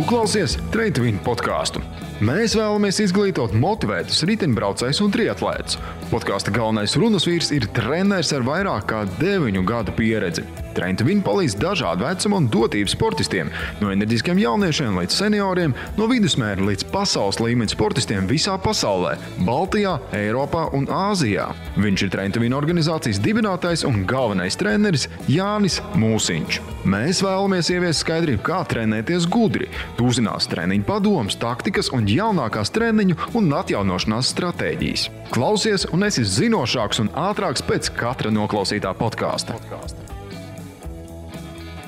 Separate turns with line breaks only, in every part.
klausies Train to Win podcastu. Mēs vēlamies izglītot motivētus riteņbraucējus un triatlētus. Podkāsta galvenais runas vīrs ir treneris ar vairāk kā 9 gadu pieredzi. Train to Win palīdz dažādu vecumu un dotību sportistiem, no enerģiskiem jauniešiem līdz senioriem, no vidusmēra līdz pasaules līmeņa sportistiem visā pasaulē, Baltijā, Eiropā un Āzijā. Viņš ir Train to Win organizācijas dibinātājs un galvenais treneris Jānis Mūsiņš. Mēs vēlamies ieviest skaidrību, kā trenēties gudri. Tu uzzinās treniņu padomus, taktikas un jaunākās treniņu un atjaunošanās stratēģijas. Klausies un esi zinošāks un ātrāks pēc katra noklausītā podkāsta.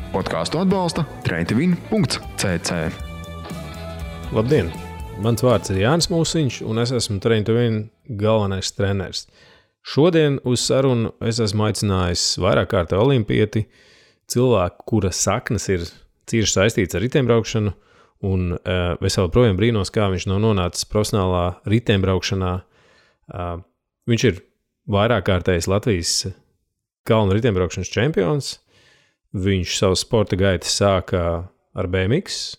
Podkāstu atbalsta traintowin.cc.
Labdien! Mans vārds ir Jānis Mūsiņš, un es esmu Train to Win galvenais treneris. Šodien uz sarunu es esmu aicinājis vairāk kārtā olimpieti, cilvēku, kura saknes ir cieši saistīts ar riteņbraukšanu, un es vēl projām brīnos, kā viņš nav nonācis profesionālā riteņbraukšanā. Viņš ir vairāk kārtējs Latvijas kalnu riteņbraukšanas čempions. Viņš savu sporta gaitu sāka ar BMX,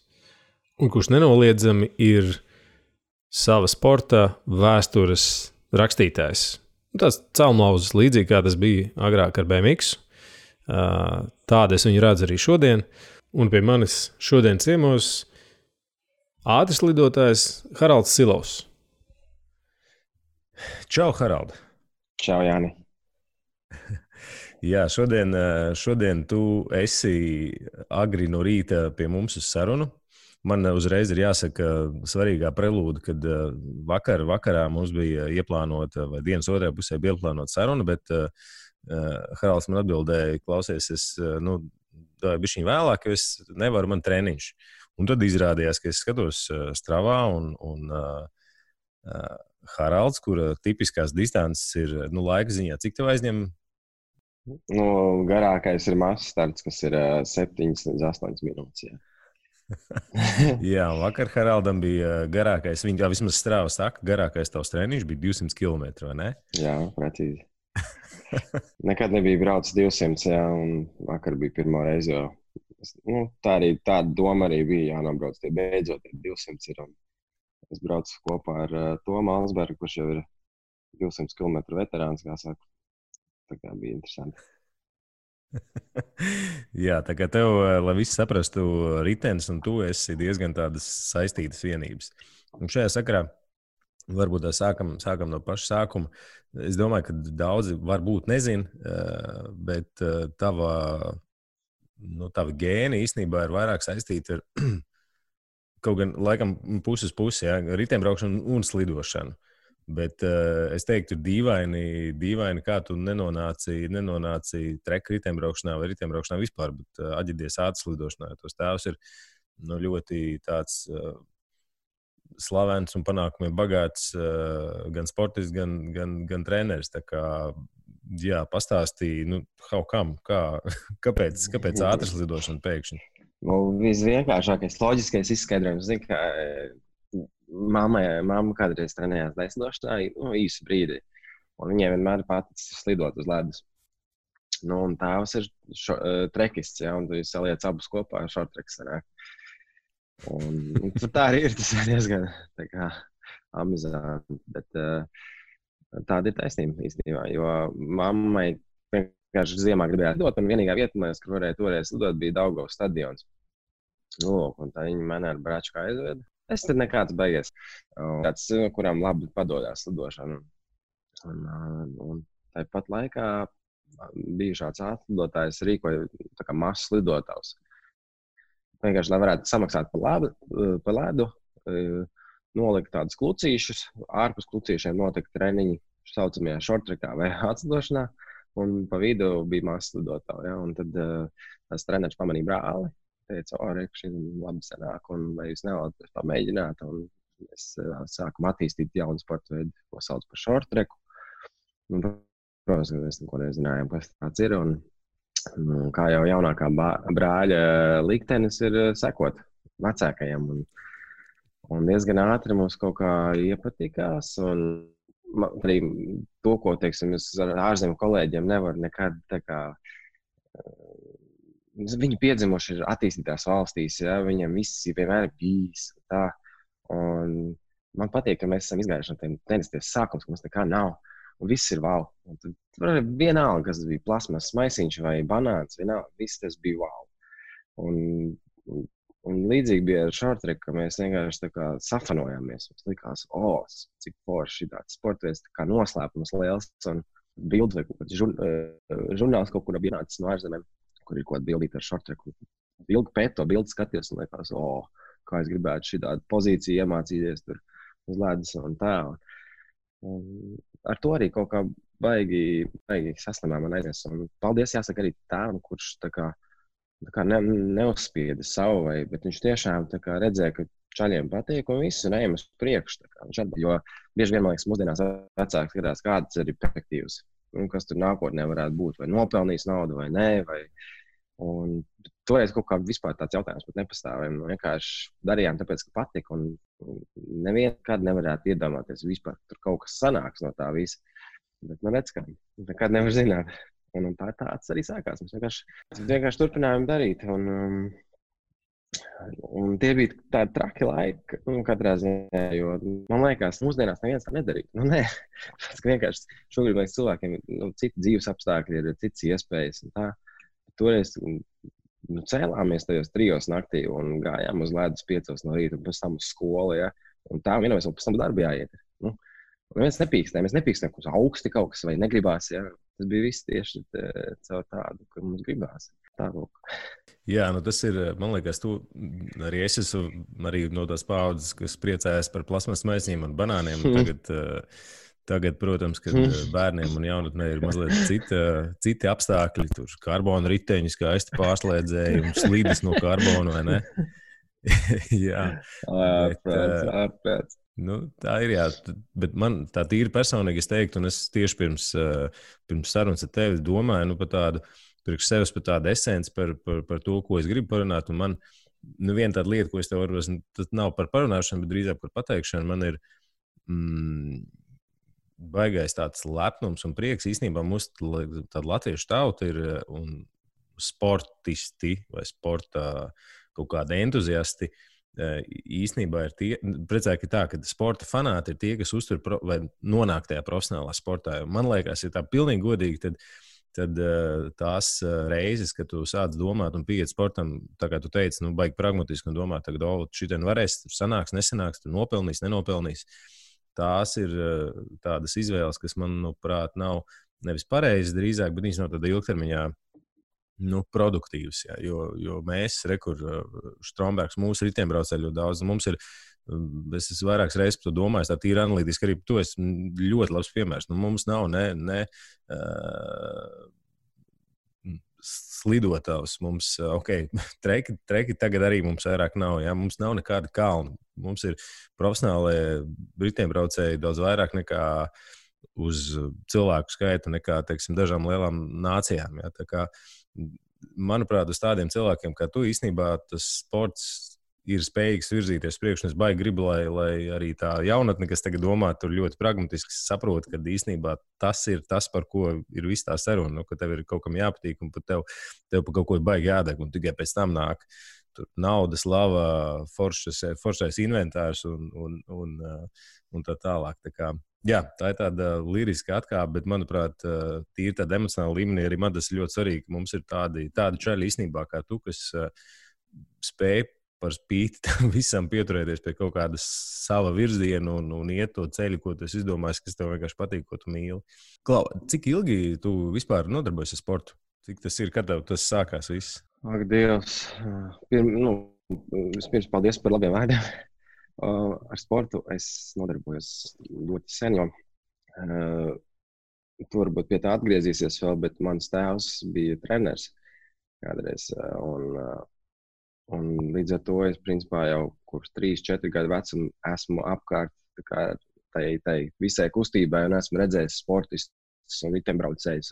un kurš nenoliedzami ir sava sporta vēstures rakstītājs. Tāds celmlauzis līdzīgi, kā tas bija agrāk ar BMX. Tādu es viņu redzu arī šodien. Un pie manis šodien ciemos ātrs lidotājs Haralds Silovs.
Čau, Harald!
Čau, Jāni!
Jā, šodien tu esi agri no rīta pie mums uz sarunu. Man uzreiz ir jāsaka svarīgā prelūda, kad vakarā mums bija ieplānota, vai dienas otrajā pusē bija ieplānota saruna, bet Haralds man atbildēja, klausies, es bišķiņ vēlāk, jo es nevaru, man treniņš. Un tad izrādījās, ka es skatos Stravā un Haralds, kura tipiskās distances ir laika ziņā. Cik tev aizņem?
Garākais ir mazs starts, kas ir 7 līdz 8 minūtes. Jā.
Jā, vakar Haraldam bija garākais, viņa vismaz Strava saka, garākais tavs treniņš bija 200 km, vai ne?
Jā, precīzi. Nekad nebija braucis 200, jā, un vakar bija pirmo reizi, jo tāda doma arī bija jānobrauc, tie beidzot 200 ir. Un es braucu kopā ar Tomu Alsbergu, kurš jau ir 200 km veterāns, kā saka. Tā kā bija interesanti.
Jā, tā kā tev, lai visi saprastu, ritenis un tu esi diezgan tādas saistītas vienības. Un šajā sakarā varbūt sākam no paša sākuma. Es domāju, ka daudzi varbūt nezin, bet tava gēni īstenībā ir vairāk saistīti ar kaut gan laikam puses pusi, jā, riteņbraukšanu un slidošanu. Bet es teiktu, dīvaini, kā tu nenonāci treka riteņbraukšanā vai riteņbraukšanā vispār, bet aģidies ātras lidošanā. Tos tēvs ir ļoti tāds slavens un panākumiem bagāts gan sportists, gan treneris. Tā kā, jā, pastāstīja, kāpēc ātras lidošana pēkšņi?
Visvienkāršākais, loģiskais izskaidrojums, zinu, ka Mamma kādreiz trenējās daisnošanā īsu brīdi, un viņai vienmēr paticis slidot uz ledus. Un tēvs ir trekists, ja, un tu saliec abus kopā ar šortreks sanāk. Un tā arī ir, tas ir diezgan tā kā amizanti, bet tāda ir taisnība īstenībā, jo mammai vienkārši ziemā gribēja lidot, un vienīgā vieta, kur varēja toreiz lidot, bija Daugavas stadions. Un tā viņa mani ar bračku aizveda. Es tad nekāds beigies. Kāds, kuram labi padodās lidošana. Un tāpat laikā bija šāds atlidotājs rīkoja tā kā mazs lidotājs. Vienkārši, lai varētu samaksāt pa ledu, nolikt tādus klucīšus, ārpus klucīšiem notika treniņi saucamajā šortrekā vai atlidošanā, un pa vidu bija mazs lidotājs. Ja? Un tad tas treneris pamanīja brāli. Teica, šī labi sanāk, un vai jūs nevēlaties pamēģināt, un mēs sākam attīstīt jaunu sporta veidu, ko sauc par shortreku. Protams, mēs neko nezinājām, kas tāds ir, un kā jau jaunākā brāļa liktenis ir sekot vecākajam, un diezgan ātri mums kaut kā iepatikās, un arī to, ko, teiksim, es ar ārzemju kolēģiem nevaru nekad tā kā viņi piedzimuši ir attīstītās valstīs, ja, viņiem viss vienmēr ir bijis. Tā. Un man patīk, ka mēs esam izgājuši no tiem tenisies sākums, ka mums nekā nav. Un viss ir wow. Un tad vienalga, kas bija plasmas maisiņš vai banāns, vienalga, viss tas bija wow. Un līdzīgi bija ar shorttrack, ka mēs vienkārši tā kā safanojāmies. Mums likās, cik forši tāds sportveids, tā kā noslēpums liels. Un bildi vai kaut kāds žurnāls kaut kur bija nācis no ārzemēm, kur ir kaut kāda bildīta ar shorttracku. Ilgi pēc to bildi skatījos un likās, kā es gribētu šitādu pozīciju iemācīties tur uz ledus un tā. Un ar to arī kaut kā baigi saslimā man aizies. Un paldies jāsaka arī tēvam, kurš tā kā neuzspieda savu, bet viņš tiešām tā kā redzēja, ka čaļiem patīk un viss un ejam uz priekšu. Jo bieži vien, man liekas, mūsdienās vecāki skatās, kādas ir perspektīvas, kas tur nākotnē varētu būt, vai nopelnīs naudu vai nē. Un toreiz kaut kā vispār tāds jautājums pat nepastāvēja. Vienkārši darījām tāpēc, ka patika un nevienkārt nevarētu iedomāties vispār, tur kaut kas sanāks no tā visa. Bet man redz, ka nekad nevar zināt. Un tā tāds arī sākās. Mēs vienkārši turpinājām darīt. Un tie bija tādi traki laiki, katrā ziņā, jo man liekas, mūsdienās neviens tā nedarītu. Nē, vienkārši šobrīd liekas cilvēkiem citi dzīves apstākļi, ir citas iespējas. Un tā. Toreiz cēlāmies tajos 3 naktī un gājām uz ledus 5 no rīta un pēc tam uz skolu. Ja? Un tā vienojamies, un pēc tam darbi jāiet. Mēs nepīkstējām, ka augsti kaut kas vai negribās. Ja? Tas bija viss tieši caur tādu, ka mums gribās.
Jā, tas ir, man liekas, arī es esmu arī no tās paudzes, kas priecājas par plasmas maisiņiem un banāniem. Tagad, protams, kad bērniem un jaunatnē ir mazliet citi apstākļi, tur karbona riteņi, skaisti pārslēdzēji, slīdes no karbona, vai ne? Jā.
Ārprāts.
Tā ir, jā. Bet man tā tīri personīgi es teiktu, un es tieši pirms sarunas ar tevi domāju, par tādu, priekš sevis par tādu esenci, par to, ko es gribu parunāt. Un man, viena tāda lieta, ko es tev varu, tas nav par parunāšanu, bet drīzāk par pateikšanu, man ir baigais tāds lepnums un prieks. Īstenībā mums tāda latviešu tauta ir un sportisti vai sporta kaut kādi entuziasti. Īstenībā ir tie, precīzāk ir tā, ka sporta fanāti ir tie, kas uztur vai nonāk tajā profesionālā sportā. Man liekas, ja tā pilnīgi godīgi, tad tās reizes, kad tu sāc domāt un pieiet sportam, tā kā tu teici, baigi pragmatiski un domāt, tagad, šitien varēs, tur sanāks, nesanāks, tur nopelnīs, nenopelnīs. Tās ir tādas izvēles, kas, manuprāt, nav nevis pareizas drīzāk, bet viņas nav tāda ilgtermiņā produktīvs, jā, jo mēs, Strombergs, mūsu riteņbraucēji ļoti daudz, mums ir, es esmu vairākas reizes par to domājis, tā tīri analītiski arī tu esi ļoti labs piemērs. Mums nav ne slidotājs, mums, treki tagad arī mums vairāk nav, jā, mums nav nekāda kalna. Mums ir profesionālie riteņbraucēji daudz vairāk nekā uz cilvēku skaitu nekā, teiksim, dažām lielām nācijām, jā, tā kā manuprāt, uz tādiem cilvēkiem kā tu, īstenībā tas sports ir spējīgs virzīties priekš, un es baigi gribu, lai arī tā jaunatne, kas tagad domā, tur ļoti pragmatiski saprot, ka īstenībā tas ir tas, par ko ir viss tā saruna, ka tev ir kaut kam jāpatīk, un tev par kaut ko baigi jādeg, un tikai pēc tam nāk tur nauda, slava, foršais inventārs un tā tālāk. Tā kā, jā, tā ir tāda liriska atkāpe, bet, manuprāt, tīri tāda emocionāla līmenī arī man tas ir ļoti svarīgi, ka mums ir tādi čaļi īstenībā kā tu, kas spēj par spīti tam visam pieturēties pie kaut kādas sava virziena un iet to ceļu, ko tu esi izdomājis, kas tev vienkārši patīk, ko tu mīli. Klau, cik ilgi tu vispār nodarbojies ar sportu? Cik tas ir, kad tev tas sākās viss?
Ak, Dievs. Vispirms paldies par labiem vārdiem. Ar sportu es nodarbojos ļoti sen, jo tu varbūt pie tā atgriezīsies vēl, bet mans tēvs bija treneris kādreiz. Un līdz ar to es principā jau kopš 3-4 gadu vecuma esmu apkārt tai visai kustībai un esmu redzējis sportistus un riteņbraucējus.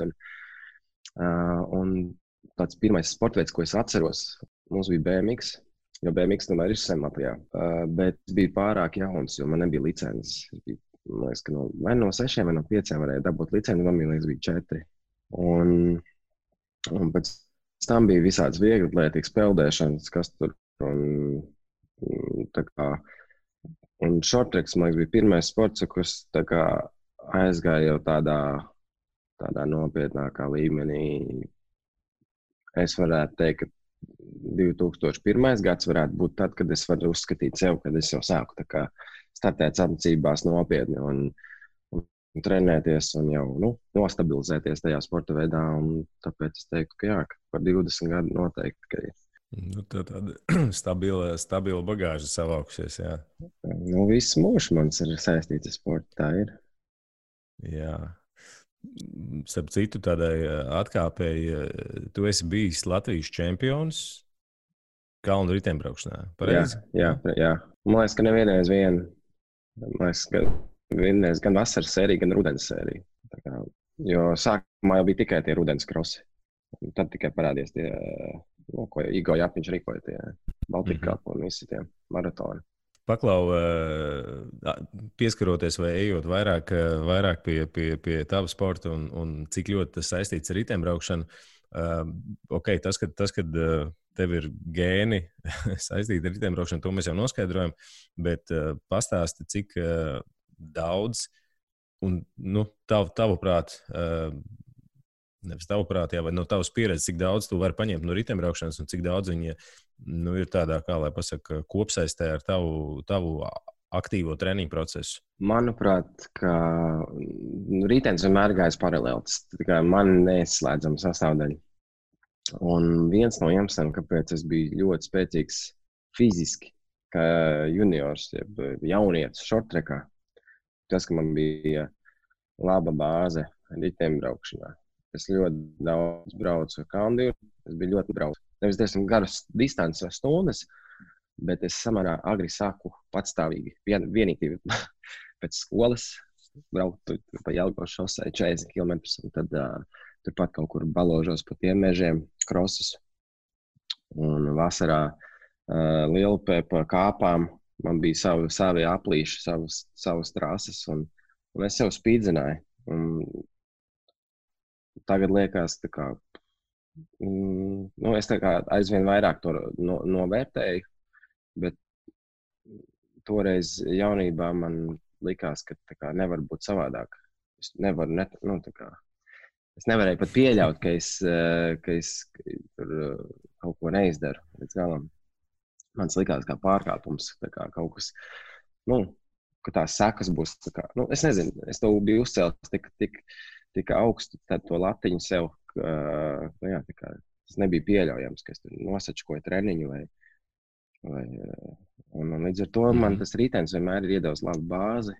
Un tāds pirmais sportveids, ko es atceros, mums bija BMX, jo BMX tomēr ir sen Latvijā. Bet bija pārāk jauns, jo man nebija licences. Man liekas, ka vai no 6 vai no 5 varēja dabūt licenci, man liekas, bija 4. Un pēc tam bija visāds vieglatlētīgas peldēšanas, kas tur tā kā. Un shorttracks, man liekas, bija pirmais sports, kurš tā kā aizgāja jau tādā nopietnākā līmenī. Es varētu teikt, ka 2001. gads varētu būt tad, kad es varu uzskatīt sev, kad es jau sāku tā kā startēt sacensībās nopietni un trenēties un jau nostabilizēties tajā sporta veidā. Un tāpēc es teiktu, ka jā, ka par 20 gadu noteikti, ka ir.
Tāda stabila bagāža savākusies, jā.
Viss mūžs mans ir saistīts ar sportu, tā ir.
Jā. Starp citu, tādai atkāpēji, tu esi bijis Latvijas čempions kalnu riteņbraukšanā, pareizi?
Jā. Man liekas, ka nevienreiz gan vasaras sērija, gan rudens sērija. Jo sākumā jau bija tikai tie rudens krosi. Tad tikai parādījās tie, ko Igo Jāpiņš rīkoja, tie Baltika Cup un visi tie maratoni.
Paklau, pieskaroties vai ejot vairāk pie tava sporta un cik ļoti tas saistīts ar riteņbraukšanu, tas, kad tev ir gēni saistīti ar riteņbraukšanu, to mēs jau noskaidrojam, bet pastāsti, cik daudz un, tavuprāt, nevis tavuprāt, vai no tavas pieredzes, cik daudz tu vari paņemt no riteņbraukšanas un cik daudz viņa ir tādā, kā lai pasaka, kopsaistē ar tavu aktīvo treniņu procesu?
Manuprāt, ka ritenis vienmēr gājis paralēli. Tas tikai man neizslēdzama sastāvdaļa. Un viens no iemesliem, kāpēc es biju ļoti spēcīgs fiziski, kā juniors, jaunietis shorttrackā, tas, ka man bija laba bāze riteņbraukšanā. Es ļoti daudz braucu ar kalndīru, es biju ļoti braucu. Nevis diezgan garas distances stundas, bet es samērā agri sāku patstāvīgi. Vienīgi pēc skolas braukt pa Jelgavas šosei 40 km, un tad turpat kaut kur baložos pa tiem mežiem, krosus. Un vasarā Lielupē pa kāpām man bija savi aplīši, savas trases, un es sev spīdzināju. Tagad liekas, tā kā, es tā kā aizvien vairāk to novērtēju, bet toreiz jaunībā man likās, ka tā kā nevar būt savādāk. Es nevarēju pat pieļaut, ka es tur kaut ko neizdaru līdz galam. Man likās kā pārkāpums, tā kā kaut kas, ka tās sekas būs, tā kā, es nezinu, es to biju uzcēlis tik augstu, tad to latiņu sev, tā kā tas nebija pieļaujams, ka es tur nosačkoju treniņu un līdz ar to man tas ritenis vienmēr ir iedevis labu bāzi,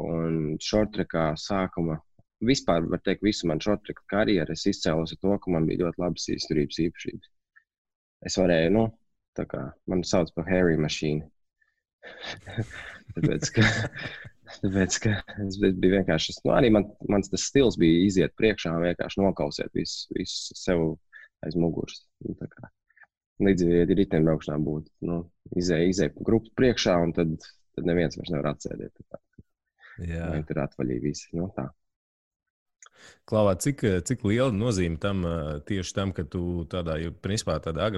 un shorttrackā sākuma, vispār var teikt, visu man shorttrack karjeru es izcēlos ar to, ka man bija ļoti labas izturības īpašības. Es varēju, tā kā, man sauc par Harry Machine. Tāpēc, ka es biju vienkārši, arī mans tas stils bija iziet priekšā un vienkārši nokausēt visu sev aiz muguras. Līdzīgi riteņbraukšanā būtu, izēja grupas priekšā un tad neviens vairs nevar atsēdēt. Jā. Vai tur atvaļīja visi, tā.
Klavā, cik liela nozīme tam tieši tam, ka tu tādā, jo principā tādā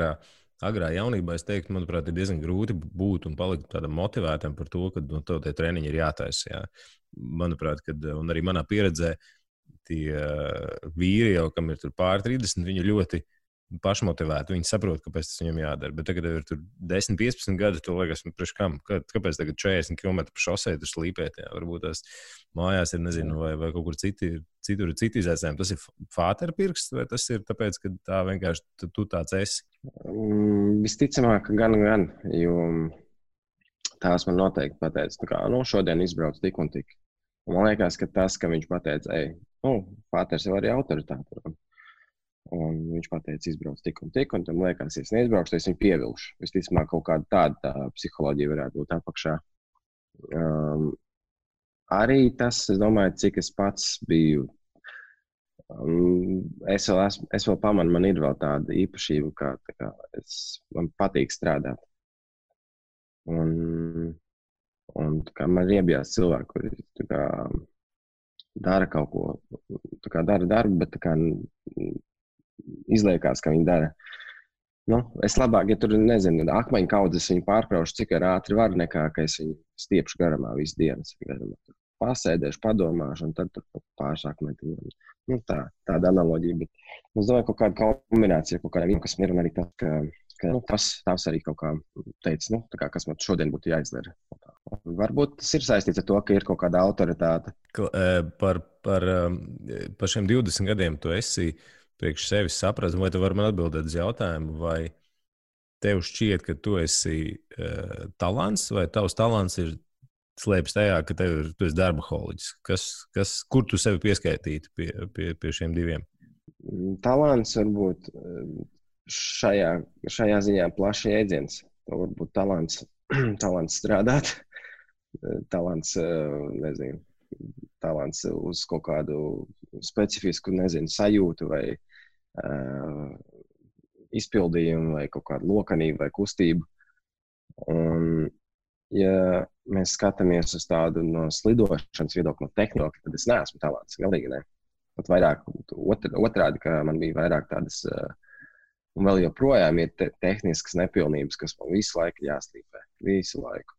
agrā jaunībā, es teiktu, manuprāt, ir diezgan grūti būt un palikt tādam motivētam par to, ka tev tie treniņi ir jātaisa. Jā. Manuprāt, un arī manā pieredzē tie vīri jau, kam ir tur pār 30, viņi ļoti pašmotivēti. Viņi saprot, kāpēc tas viņam jādara. Bet tagad ir tur 10, 15 gadi, to liekas, priekš kam? Kāpēc tagad 40 km pa šosei tur slīpēt? Jā? Varbūt tās mājās ir, nezinu, vai kaut kur citur ir citi izaicinājumi. Tas ir fāterpirksts, vai tas ir tāpēc, ka tā vienkārši tu tāds esi?
Visticamāk, gan, jo tās man noteikti pateica, tā kā, šodien izbrauc tik un tik. Un man liekas, ka tas, ka viņš pateica, fāters jau arī autoritāte. Un viņš pateica, izbrauc tik un tik, un tam liekas, ja es neizbraukšu, tad es viņu pievilšu. Visticamāk, kaut kāda tāda psiholoģija varētu būt apakšā. Arī tas, es domāju, cik es pats biju. Es vēl pamanu, man ir vēl tāda īpašība, kā man patīk strādāt. Un tā kā man riebjās cilvēki, kuri tā kā dara kaut ko, tā kā dara darbu, bet tā kā izliekās, ka viņi dara. Nu, es labāk, ja tur, nezinu, akmeņu kaudzes viņu pārkraušu, cik ātri var, nekā, ka es viņu stiepšu garumā visu dienas. Pasēdēšu, padomāšu, un tad pārsāk metiņu. Nu, tāda analoģija, bet es domāju, kaut kāda kombinācija, kaut kādiem, kas mir, un arī tas, ka nu, tas arī kaut kā teica, nu, tā kā, kas man šodien būtu jāizdara. Varbūt tas ir saistīts ar to, ka ir kaut kāda autoritāte.
Par šiem 20 gadiem tu esi priekš sevis sapratis, vai tu vari man atbildēt uz jautājumu, vai tev šķiet, ka tu esi talants, vai tavs talants ir slēpjas tajā, ka tu esi darbaholiķis? Kur tu sevi pieskaitītu pie šiem diviem?
Talants varbūt šajā ziņā plašs jēdziens. To varbūt talants strādāt, talants, nezinu, talants uz kaut kādu specifisku, nezinu, sajūtu vai izpildījumu vai kaut kādu lokanību vai kustību. Un, ja mēs skatāmies uz tādu no slidošanas viedokļa, no tehnoloģija, tad es neesmu talants, galīgi ne. Pat vairāk otrādi, ka man bija vairāk tādas, un vēl joprojām ir tehniskas nepilnības, kas man visu laiku jāslīpē, visu laiku.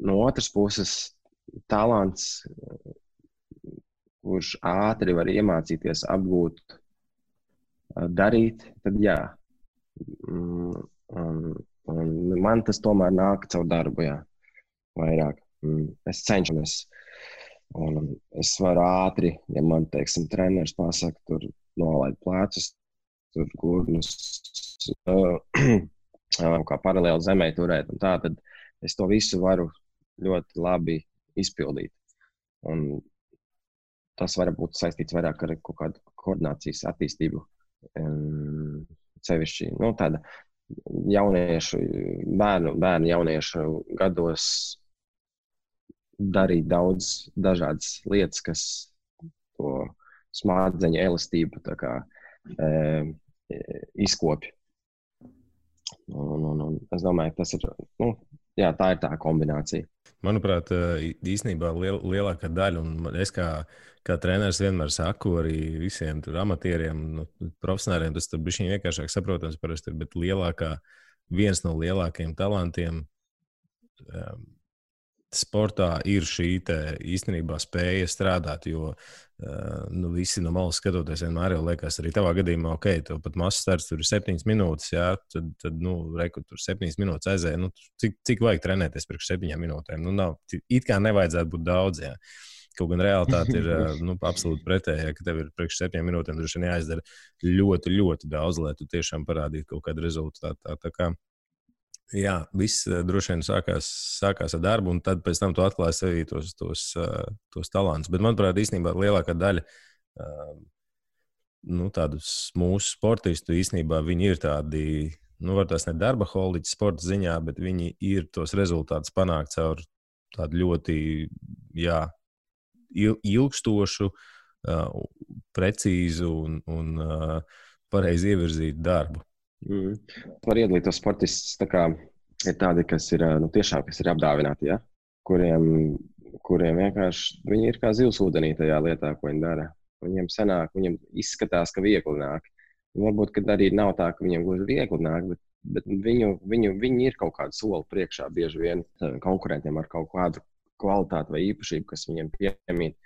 No otras puses, talants, kurš ātri var iemācīties apgūt, darīt, tad jā. Un man tas tomēr nāk caur darbu, jā, vairāk. Es cenšamies, un es varu ātri, ja man, teiksim, treneris pasaka, tur nolaid plecus, tur gurnus, kā paralēli zemē turēt, un tā, tad es to visu varu ļoti labi izpildīt. Un tas var būt saistīts vairāk ar kaut kādu koordinācijas attīstību, sevišķi, nu, tāda jauniešu, bērnu jauniešu gados darīt daudz dažādas lietas, kas to smadzeņu elastību tā kā izkopja. Un es domāju, ka tas ir, nu, jā, tā ir tā kombinācija.
Manuprāt, īstenībā lielākā daļa, un es kā treneris vienmēr saku arī visiem tur amatieriem, profesionāriem, tas tur bišķiņ vienkāršāk saprotams parasti ir, bet viens no lielākajiem talantiem sportā ir šī īstenībā spēja strādāt, jo visi no malas skatoties vienmēr jau liekas arī tavā gadījumā, ok, tev pat mazs starts tur ir 7 minūtes, jā, tad reku tur 7 minūtes aizēja, cik vajag trenēties priekš 7 minūtēm, nav, it kā nevajadzētu būt daudz, jā. Kaut gan realitāte ir absolūti pretējā, ka tev ir priekš 7 minūtēm droši vien jāizdara ļoti, ļoti daudz, lai tu tiešām parādītu kaut kādu rezultātu. Tā kā, jā, viss droši vien sākās ar darbu, un tad pēc tam tu atklāji sevī tos talantus. Bet, manuprāt, īstenībā lielākā daļa tādus mūsu sportistu īstenībā viņi ir tādi, var tās ne darbaholiķi sporta ziņā, bet viņi ir tos rezultātus panākt caur tādu ļoti, jā, ilgstošu, precīzu un pareizi ievirzītu darbu.
Var iedalīt tos sportistus, tā kā ir tādi, kas ir, tiešām, kas ir apdāvināti, ja? kuriem vienkārši, viņi ir kā zivs ūdenī tajā lietā, ko viņi dara. Viņiem sanāk, viņiem izskatās, ka viegli nāk. Varbūt, kad arī nav tā, ka viņiem gluži viegli nāk, bet viņi ir kaut kādu soli priekšā bieži vien konkurentiem ar kaut kādu kvalitāti vai īpašību, kas viņiem piemīt.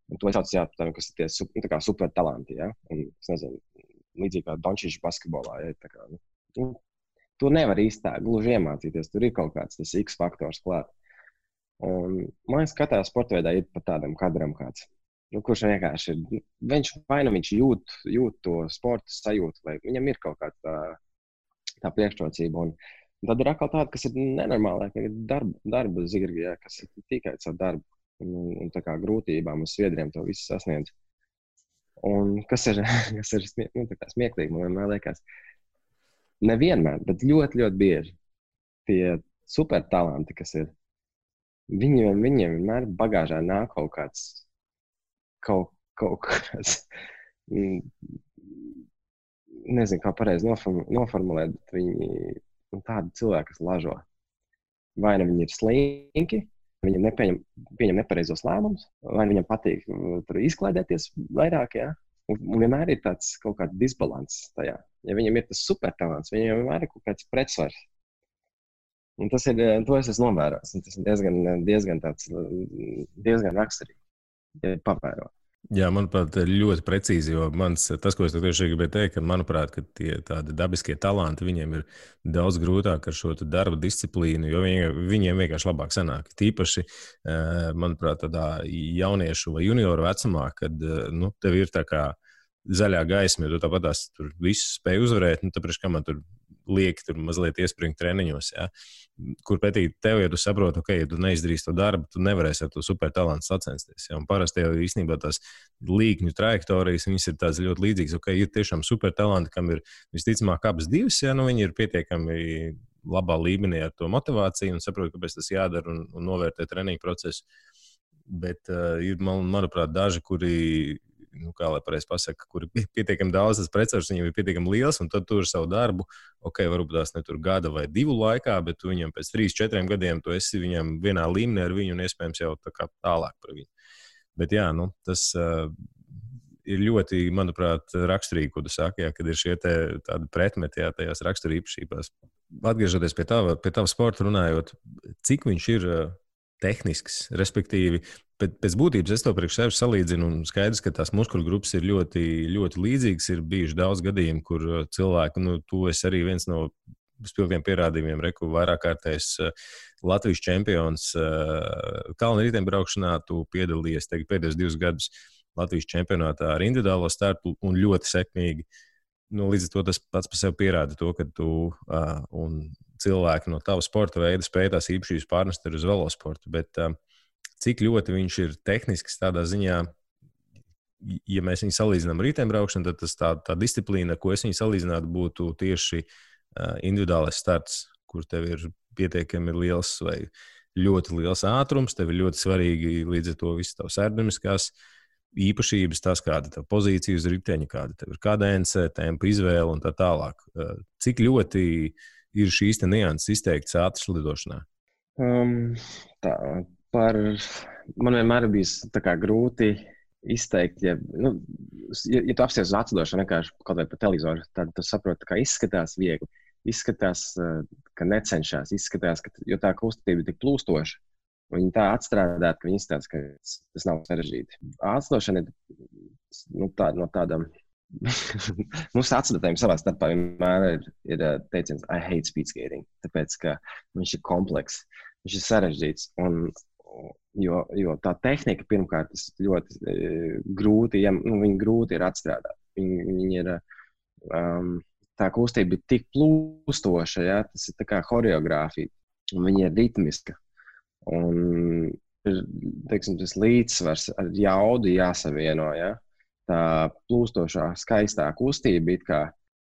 Un to es saucu, jā, kas ir tie kā super talanti, ja? Un, es nezinu, līdzīgi kā Dončičs basketbolā, ja? Tā kā, to nevar īsti tā gluži iemācīties, tur ir kaut kāds tas X faktors klāt. Un man liekas, katrā sportveidā ir pat tādam kadram kāds, kurš vienkārši ir, viņš jūt to sporta sajūtu, vai viņam ir kaut kāda tā priekšrocība. Un tad ir atkal tāda, kas ir nenormāla, ka ir darba zirgi, ja, kas ir tikai caur darbu un tā kā grūtībām uz sviedriem to visu sasniedz. Un kas ir tā kā smieklīgi, man vienmēr liekas, nevienmēr, bet ļoti, ļoti bieži tie super talanti, kas ir, viņiem vienmēr bagāžā nāk kaut kāds, nezinu, kā pareizi noformulēt, bet viņi tādi cilvēki, kas lažo. Vai ne viņi ir slinki, viņam pieņem nepareizos lēmumus, vai viņam patīk tur izklaidēties vairāk, ja? Un vienmēr ir tāds kaut kāds disbalans tajā. Ja viņam ir tas supertalants, viņam vienmēr ir kaut kāds pretsvars. Un to es esmu novērojis. Tas ir diezgan raksturīgi, ja pavēro.
Jā, manuprāt, ļoti precīzi, jo tas, ko es tieši gribēju teikt, ka, manuprāt, ka tie tādi dabiskie talanti, viņiem ir daudz grūtāk ar šo darba disciplīnu, jo viņiem vienkārši labāk sanāk. Tīpaši, manuprāt, tādā jauniešu vai junioru vecumā, kad tev ir tā kā zaļā gaisma, jo tu tāpatās tur visu spēj uzvarēt, tāpēc, kā man tur lieki tur mazliet iespringt treniņos, ja? Kur pretī tev, ja tu saproti, ja tu neizdarīsi to darbu, tu nevarēsi ar to supertalantu sacensties. Ja? Un parasti jau īstenībā tās līkņu trajektorijas, viņas ir tādas ļoti līdzīgas. Ir tiešām supertalanti, kam ir visticamāk abas divas, ja? Viņi ir pietiekami labā līmenī ar to motivāciju un saprot, kāpēc tas jādara un novērtē treniņu procesu. Bet ir, manuprāt, daži, kuri kā lai pareizi pasaka, kur ir pietiekami daudz, tas pretsvars viņam ir pietiekami liels, un tad tur savu darbu, varbūt tās ne tur gada vai 2 laikā, bet tu viņam pēc 3-4 gadiem tu esi viņam vienā līmenī ar viņu un iespējams jau tā kā tālāk par viņu. Bet jā, tas ir ļoti, manuprāt, raksturīgi, ko tu saki, kad ir šie tādi pretmeti tajās raksturīpašībās. Atgriežoties pie tava sporta runājot, cik viņš ir tehnisks, respektīvi, pēc būtības es to priekš sevi salīdzinu un skaidrs, ka tās muskuļu grupas ir ļoti, ļoti līdzīgas. Ir bijuši daudz gadījumu, kur cilvēki, tu esi arī viens no spilgtiem pierādījumiem, vairāk kārtējs Latvijas čempions kalnu riteņbraukšanā, tu piedalījies pēdējos 2 gadus Latvijas čempionātā ar individuālo startu un ļoti sekmīgi. Līdz ar to tas pats par sevi pierāda to, ka tu un cilvēki no tava sporta veida spēj tās īpašības pārnest uz velosportu. Bet cik ļoti viņš ir tehnisks tādā ziņā, ja mēs viņu salīdzinām ar riteņbraukšanu, tad tas tā disciplīna, ko es viņu salīdzinātu, būtu tieši individuālais starts, kur tev ir pietiekami liels vai ļoti liels ātrums, tev ir ļoti svarīgi līdz ar to visas tavas aerodinamiskās īpašības, tas, kāda tev pozīcija uz riteņa, kāda tev ir kadence, tempa izvēle un tā tālāk. Cik ļoti ir šīs nianses izteikts ātras lidošanā?
Man vienmēr ir bijis grūti izteikt, ja tu apsties uz atslidošanu vienkārši kaut vai pa televizoru, tad tu saproti, ka izskatās viegli, izskatās, ka necenšas, izskatās, jo tā kustība ir tik plūstoša. Viņi tā atstrādāt, ka viņi izstāsta, ka tas nav sarežģīti. Atslidošana ir no tādām. Mums atslidotajiem savā starpā vienmēr ir teiciens I hate speed skating, tāpēc, ka viņš ir komplekss, viņš ir sarežģīts. Jo tā tehnika pirmkārt ļoti grūti, viņi grūti ir atstrādāt. Viņi ir, tā kustība ir tik plūstoša, ja, tas ir tā kā horeogrāfija, un viņa ir ritmiska. Un tas līdzsvars ar jaudu jāsavieno, ja. Tā plūstošā, skaistā kustība it kā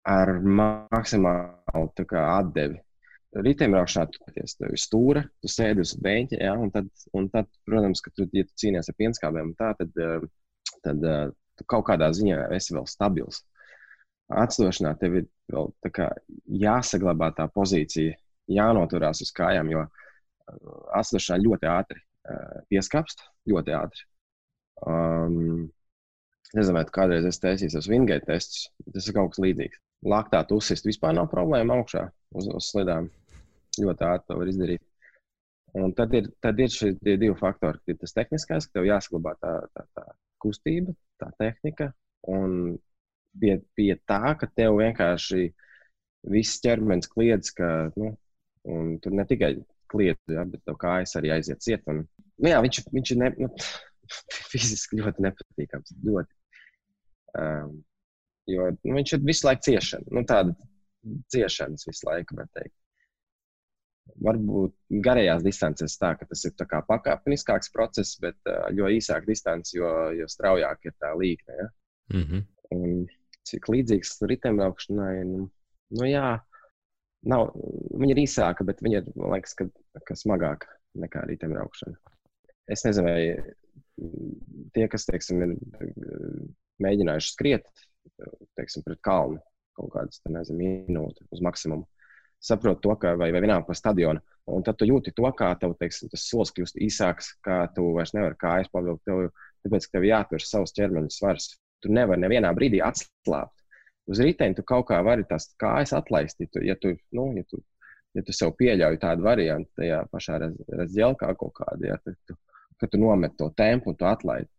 ar maksimālu atdevi. Riteņbraukšanā tu ir stūra, tu sēdi uz beņķa, ja, un tad, protams, ka ja tu cīnies ar pienskābēm, tad tu kaut kādā ziņā esi vēl stabils. Atslidošanā tev ir vēl jāsaglabā tā pozīcija, jānoturās uz kājām, jo atslidošanā ļoti ātri pieskapst, ļoti ātri. Nezinu, vai tu kādreiz esi taisījis uz Wingate testus, tas ir kaut kas līdzīgs. Laktāt uzsist vispār nav problēma augšā uz slidām. Ļoti ātri to var izdarīt. Un tad ir šie 2 faktori. Ir tas tehniskais, ka tev jāsaglabā tā kustība, tā tehnika, un pie tā, ka tev vienkārši viss ķermenis kliedz, un tur ne tikai kliedz, ja, bet tev kājas arī aiziet ciet. Un, jā, viņš ir fiziski ļoti nepatīkams. Ļoti. Jo viņš ir visu laiku ciešana. Tāda ciešanas visu laiku, var teikt. Varbūt garajās distancēs tā, ka tas ir tā kā pakāpeniskāks process, bet jo īsāk distance, jo straujāk ir tā līkne. Ja?
Mm-hmm.
Un cik līdzīgs riteņbraukšanai, jā, nav, viņa ir īsāka, bet viņa ir, man liekas, ka smagāka nekā riteņbraukšana. Es nezinu, vai tie, kas, teiksim, ir mēģinājuši skriet, teiksim, pret kalnu kaut kādas, minūti uz maksimumu, saprot to, ka vai vienalga pa stadionu, un tad tu jūti to, kā tev, teiksim, tas solis kļūst īsāks, kā tu vairs nevari kājas pavilkt, tāpēc, ka tev jātur savs ķermeņa svars. tu nevari nevienā brīdī atslābt. Uz riteņa tu kaut kā vari tās kājas atlaist, ja tu sev pieļauj tādu variantu tajā pašā razģelkā kaut kādu, ja, ka tu nomet to tempu un tu atlaidi.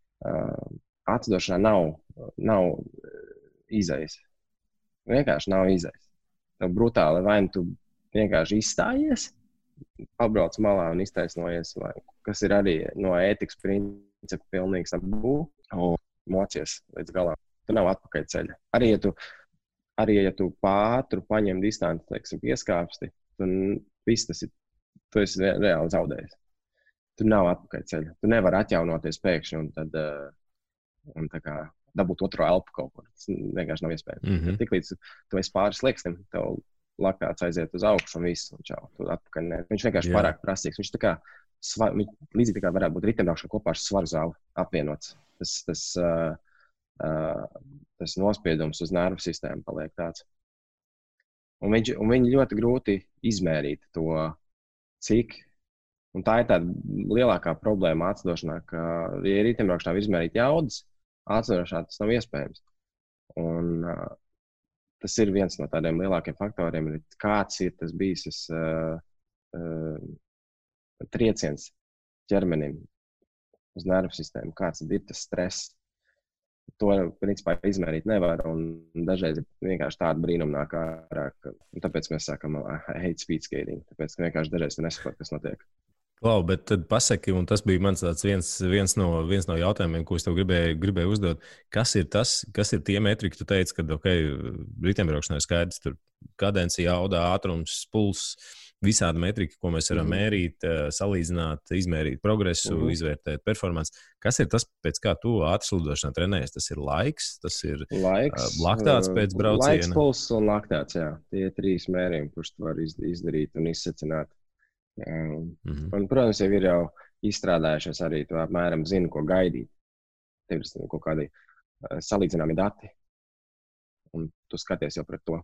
Atdošanā nav izejas. Vienkārši nav izejas. Tev brutāli vai tu vienkārši izstājies, pabrauc malā un iztaisnojies, vai, kas ir arī no ētikas principa pilnīgs tabū, un mocies līdz galam. Tu nav atpakaļ ceļa. Arī ja tu pātru paņem distanci, teiksim, pieskāpsti, tu esi reāli zaudējis. Tu nav atpakaļ ceļa. Tu nevari atjaunoties pēkšņi un tad un tā kā dabūt otro elpu kaut kur. Tas vienkārši nav iespējams. Tiklīdz tu esi pāris slieksnim, tev laktāts aiziet uz augšu un viss, un čau, tu atpakaļ ne. Viņš vienkārši pārāk prasīgs. Viņš tā kā, līdzīgi tā kā varētu būt riteņbraukšana kopā ar svaru zāli apvienots. Tas nospiedums uz nervu sistēmu paliek tāds. Un viņi ļoti grūti izmērīt to, cik. Un tā ir tāda lielākā problēma atdošanā, ka, ja riteņbraukšanā var izmērīt jaudas, atdošanā tas nav iespējams. Un tas ir viens no tādiem lielākiem faktoriem, kāds ir tas bijis trieciens ķermenim uz nervu sistēmu, kāds ir tas stress. To, principā, izmērīt nevar, un dažreiz vienkārši tāda brīnuma nāk ārā, tāpēc mēs sākam hate speed skating, tāpēc, ka vienkārši dažreiz tu nesaproti, kas notiek.
Klau, bet tad pasaki, un tas bija mans tāds viens no jautājumiem, ko es tev gribēju uzdot. Kas ir tie metriki, tu teici, ka, riteņbraukšanā ir skaidrs, tur kadence, jauda, ātrums, pulss, visādi metriki, ko mēs varam mērīt, salīdzināt, izmērīt progresu, izvērtēt performanci. Kas ir tas, pēc kā tu ātrslidošanā trenējies? Tas ir laiks, tas ir laktāts pēc brauciena?
Laiks, pulss un laktāts, jā. Tie ir 3 mērījumi, kurus tu vari izdarīt un izsecināt. Un, protams, jau ir izstrādājušies arī, tu apmēram zini, ko gaidīt. Tev ir kaut kādi salīdzināmi dati, un tu skaties jau pret to.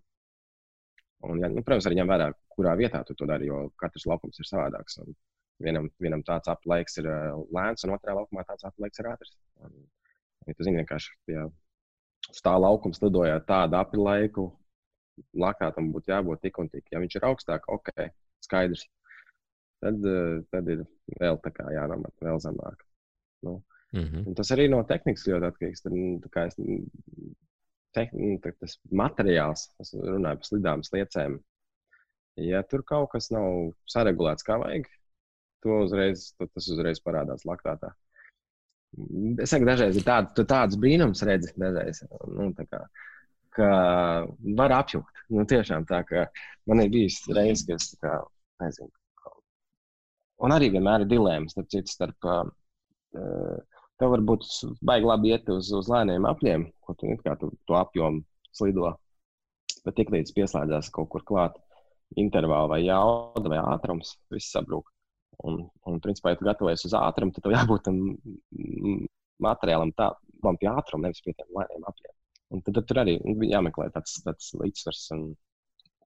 Un, ja, protams, arī ņem vērā, kurā vietā tu to dari, jo katrs laukums ir savādāks. Un vienam tāds aplaiks ir lēns, un otrā laukumā tāds aplaiks ir ātrs. Ja tu zini vienkārši, ja uz tā laukums lidojāt tādu aplaiku, laktātam būtu jābūt tik un tik. Ja viņš ir augstāk, ok, skaidrs. Tad ir vēl tā kā jānomet, vēl zemāk. Un tas arī no tehnikas ļoti atkarīgs. Tas materiāls, es runāju par slidām, sliecēm. Ja tur kaut kas nav saregulēts kā vajag, tas uzreiz parādās laktātā. Es saku, dažreiz ir tāds brīnums redzi, dažreiz, ka var apjukt. Tiešām tā, ka man ir bijis reizes, ka es tā kā, nezinu. Un arī vienmēr ir dilēmas, starp tev varbūt baigi labi iet uz lēniem apļiem, ko tu to apjomu slido. Bet tiklīdz pieslēdzās kaut kur klāt intervāli vai jauda vai ātrums, viss sabrūk. Un principā, ja tu gatavojies uz ātrumu, tad tev jābūt tam materiālam tādam pie ātruma, nevis pie tiem lēniem apļiem. Un tad tur arī jāmeklē tāds līdzsvars.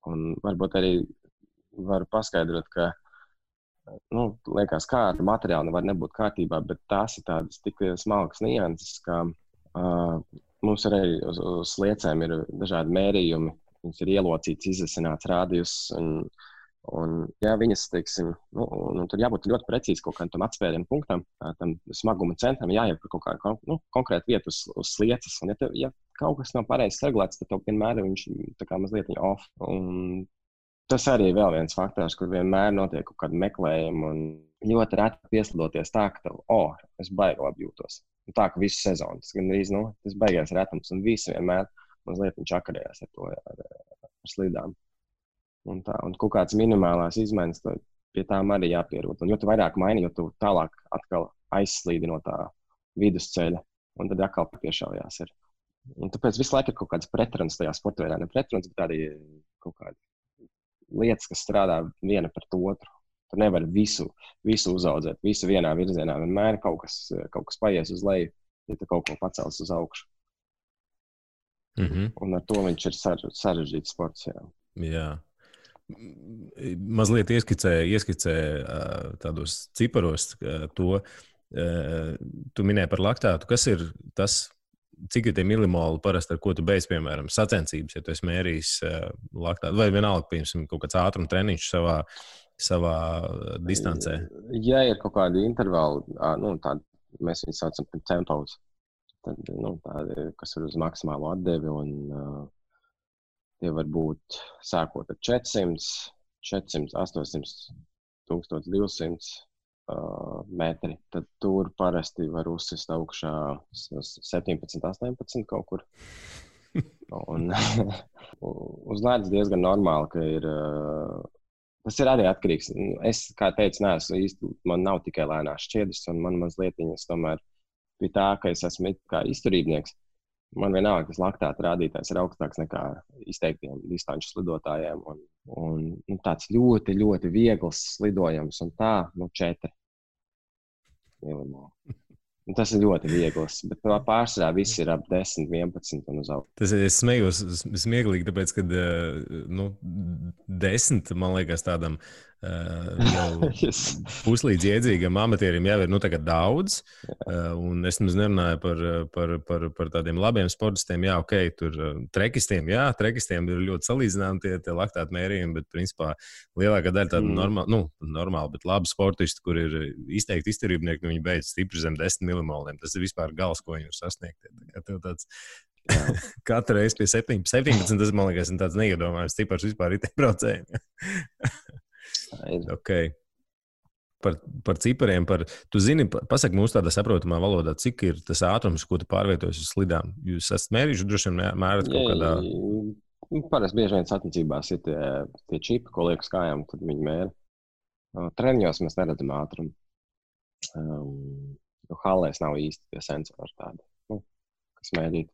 Un varbūt arī var paskaidrot, ka liekas, kā ar materiālu nevar nebūt kārtībā, bet tās ir tādas tik smalkas nianses, ka mums arī uz sliecēm ir dažādi mērījumi, viņas ir ielocīts, izasināts rādījus, un ja viņas, teiksim, tur jābūt ļoti precīzi kaut kādam atspērienu punktam, tam smaguma centram jāiet par kaut kādu konkrētu vietu uz slieces, un ja kaut kas nav pareizi regulēts, tad tev vienmēr viņš tā kā mazliet off, un tas arī ir vēl viens faktors, kur vienmēr notiek kaut kāda meklējuma un ļoti reti pieslidoties tā, ka tev, es baigi labi jūtos. Un tā, ka visu sezonu, tas gan arī, tas baigās retums un visi vienmēr mazliet viņš akarējās ar to, ar slidām. Un kaut kāds minimālās izmaiņas, pie tām arī jāpierod. Un jo tu vairāk maini, jo tu tālāk atkal aizslīdi no tā vidusceļa, un tad atkal piešaujās ir. Un tāpēc visu laiku ir kaut kāds pretruns tajā sportveidā, ne pretruns, bet arī kaut kādi lietas, kas strādā viena pret otru. Tu nevari visu uzaudzēt, visu vienā virzienā. Vienmēr kaut kas paies uz leju, ja tu kaut ko pacels uz augšu. Un ar to viņš ir sarežģīts sports.
Jā. Mazliet ieskicē tādos ciparos to. Tu minēji par laktātu. Kas ir tas cik ir tie milimoli parasti, ar ko tu beidz, piemēram, sacensības, ja tu esi mērījis laktātu, vai vienalga, piemēram, kaut kāds ātruma treniņš savā distancē?
Ja ir kaut kādi intervāli, tādi, mēs viņus saucam par tempos, tad, tādi, kas ir uz maksimālo atdevi, un tie var būt sākot ar 400, 800, 1200 metri, tad tur parasti var uzsist augšā 17, 18 kaut kur. Un uz ledus diezgan normāli, ka ir. Tas ir arī atkarīgs. Es, kā teicu, neesmu īsti, man nav tikai lēnās šķiedras, un man mazlietiņas tomēr pie tā, ka es esmu kā izturībnieks. Man vienalga, tas laktāta rādītājs ir augstāks nekā izteiktiem distanču slidotājiem. Un tāds ļoti, ļoti viegls slidojums, un tā, 4 milimoli. Tas ir ļoti viegls, bet pārsvarā viss ir ap 10, 11 un uz augšu.
Tas ir smējos smieklīgi, tāpēc, ka 10, man liekas, tādam puslīdz iedzīgam amatierim jau ir tagad daudz. Un es nerunāju par tādiem labiem sportistiem. Jā, ok, tur trekistiem ir ļoti salīdzināmi tie laktāti mērījumi, bet principā lielākā daļa tāda normāla, bet labi sportisti, kur ir izteikti izturībnieki, viņi beidz stipri zem 10 milimoliem. Tas ir vispār gals, ko viņi var sasniegt. Katru reizi pie 17, tas, man liekas, ir tāds neiedomājams cipars vispār riteņbraucējiem. Okay. Par cipariem, tu zini, pasaki mums tādā saprotamā valodā, cik ir tas ātrums, ko tu pārvietojas uz slidām. Jūs esat mērījuši, droši vien mērat kaut kādā...
Parasti bieži vien sacensībās ir tie čipi, ko liek uz kājām, tad viņi mēra. Treniņos mēs neredzam ātrumu. Hallēs nav īsti tie sensori tādi, kas mērīt.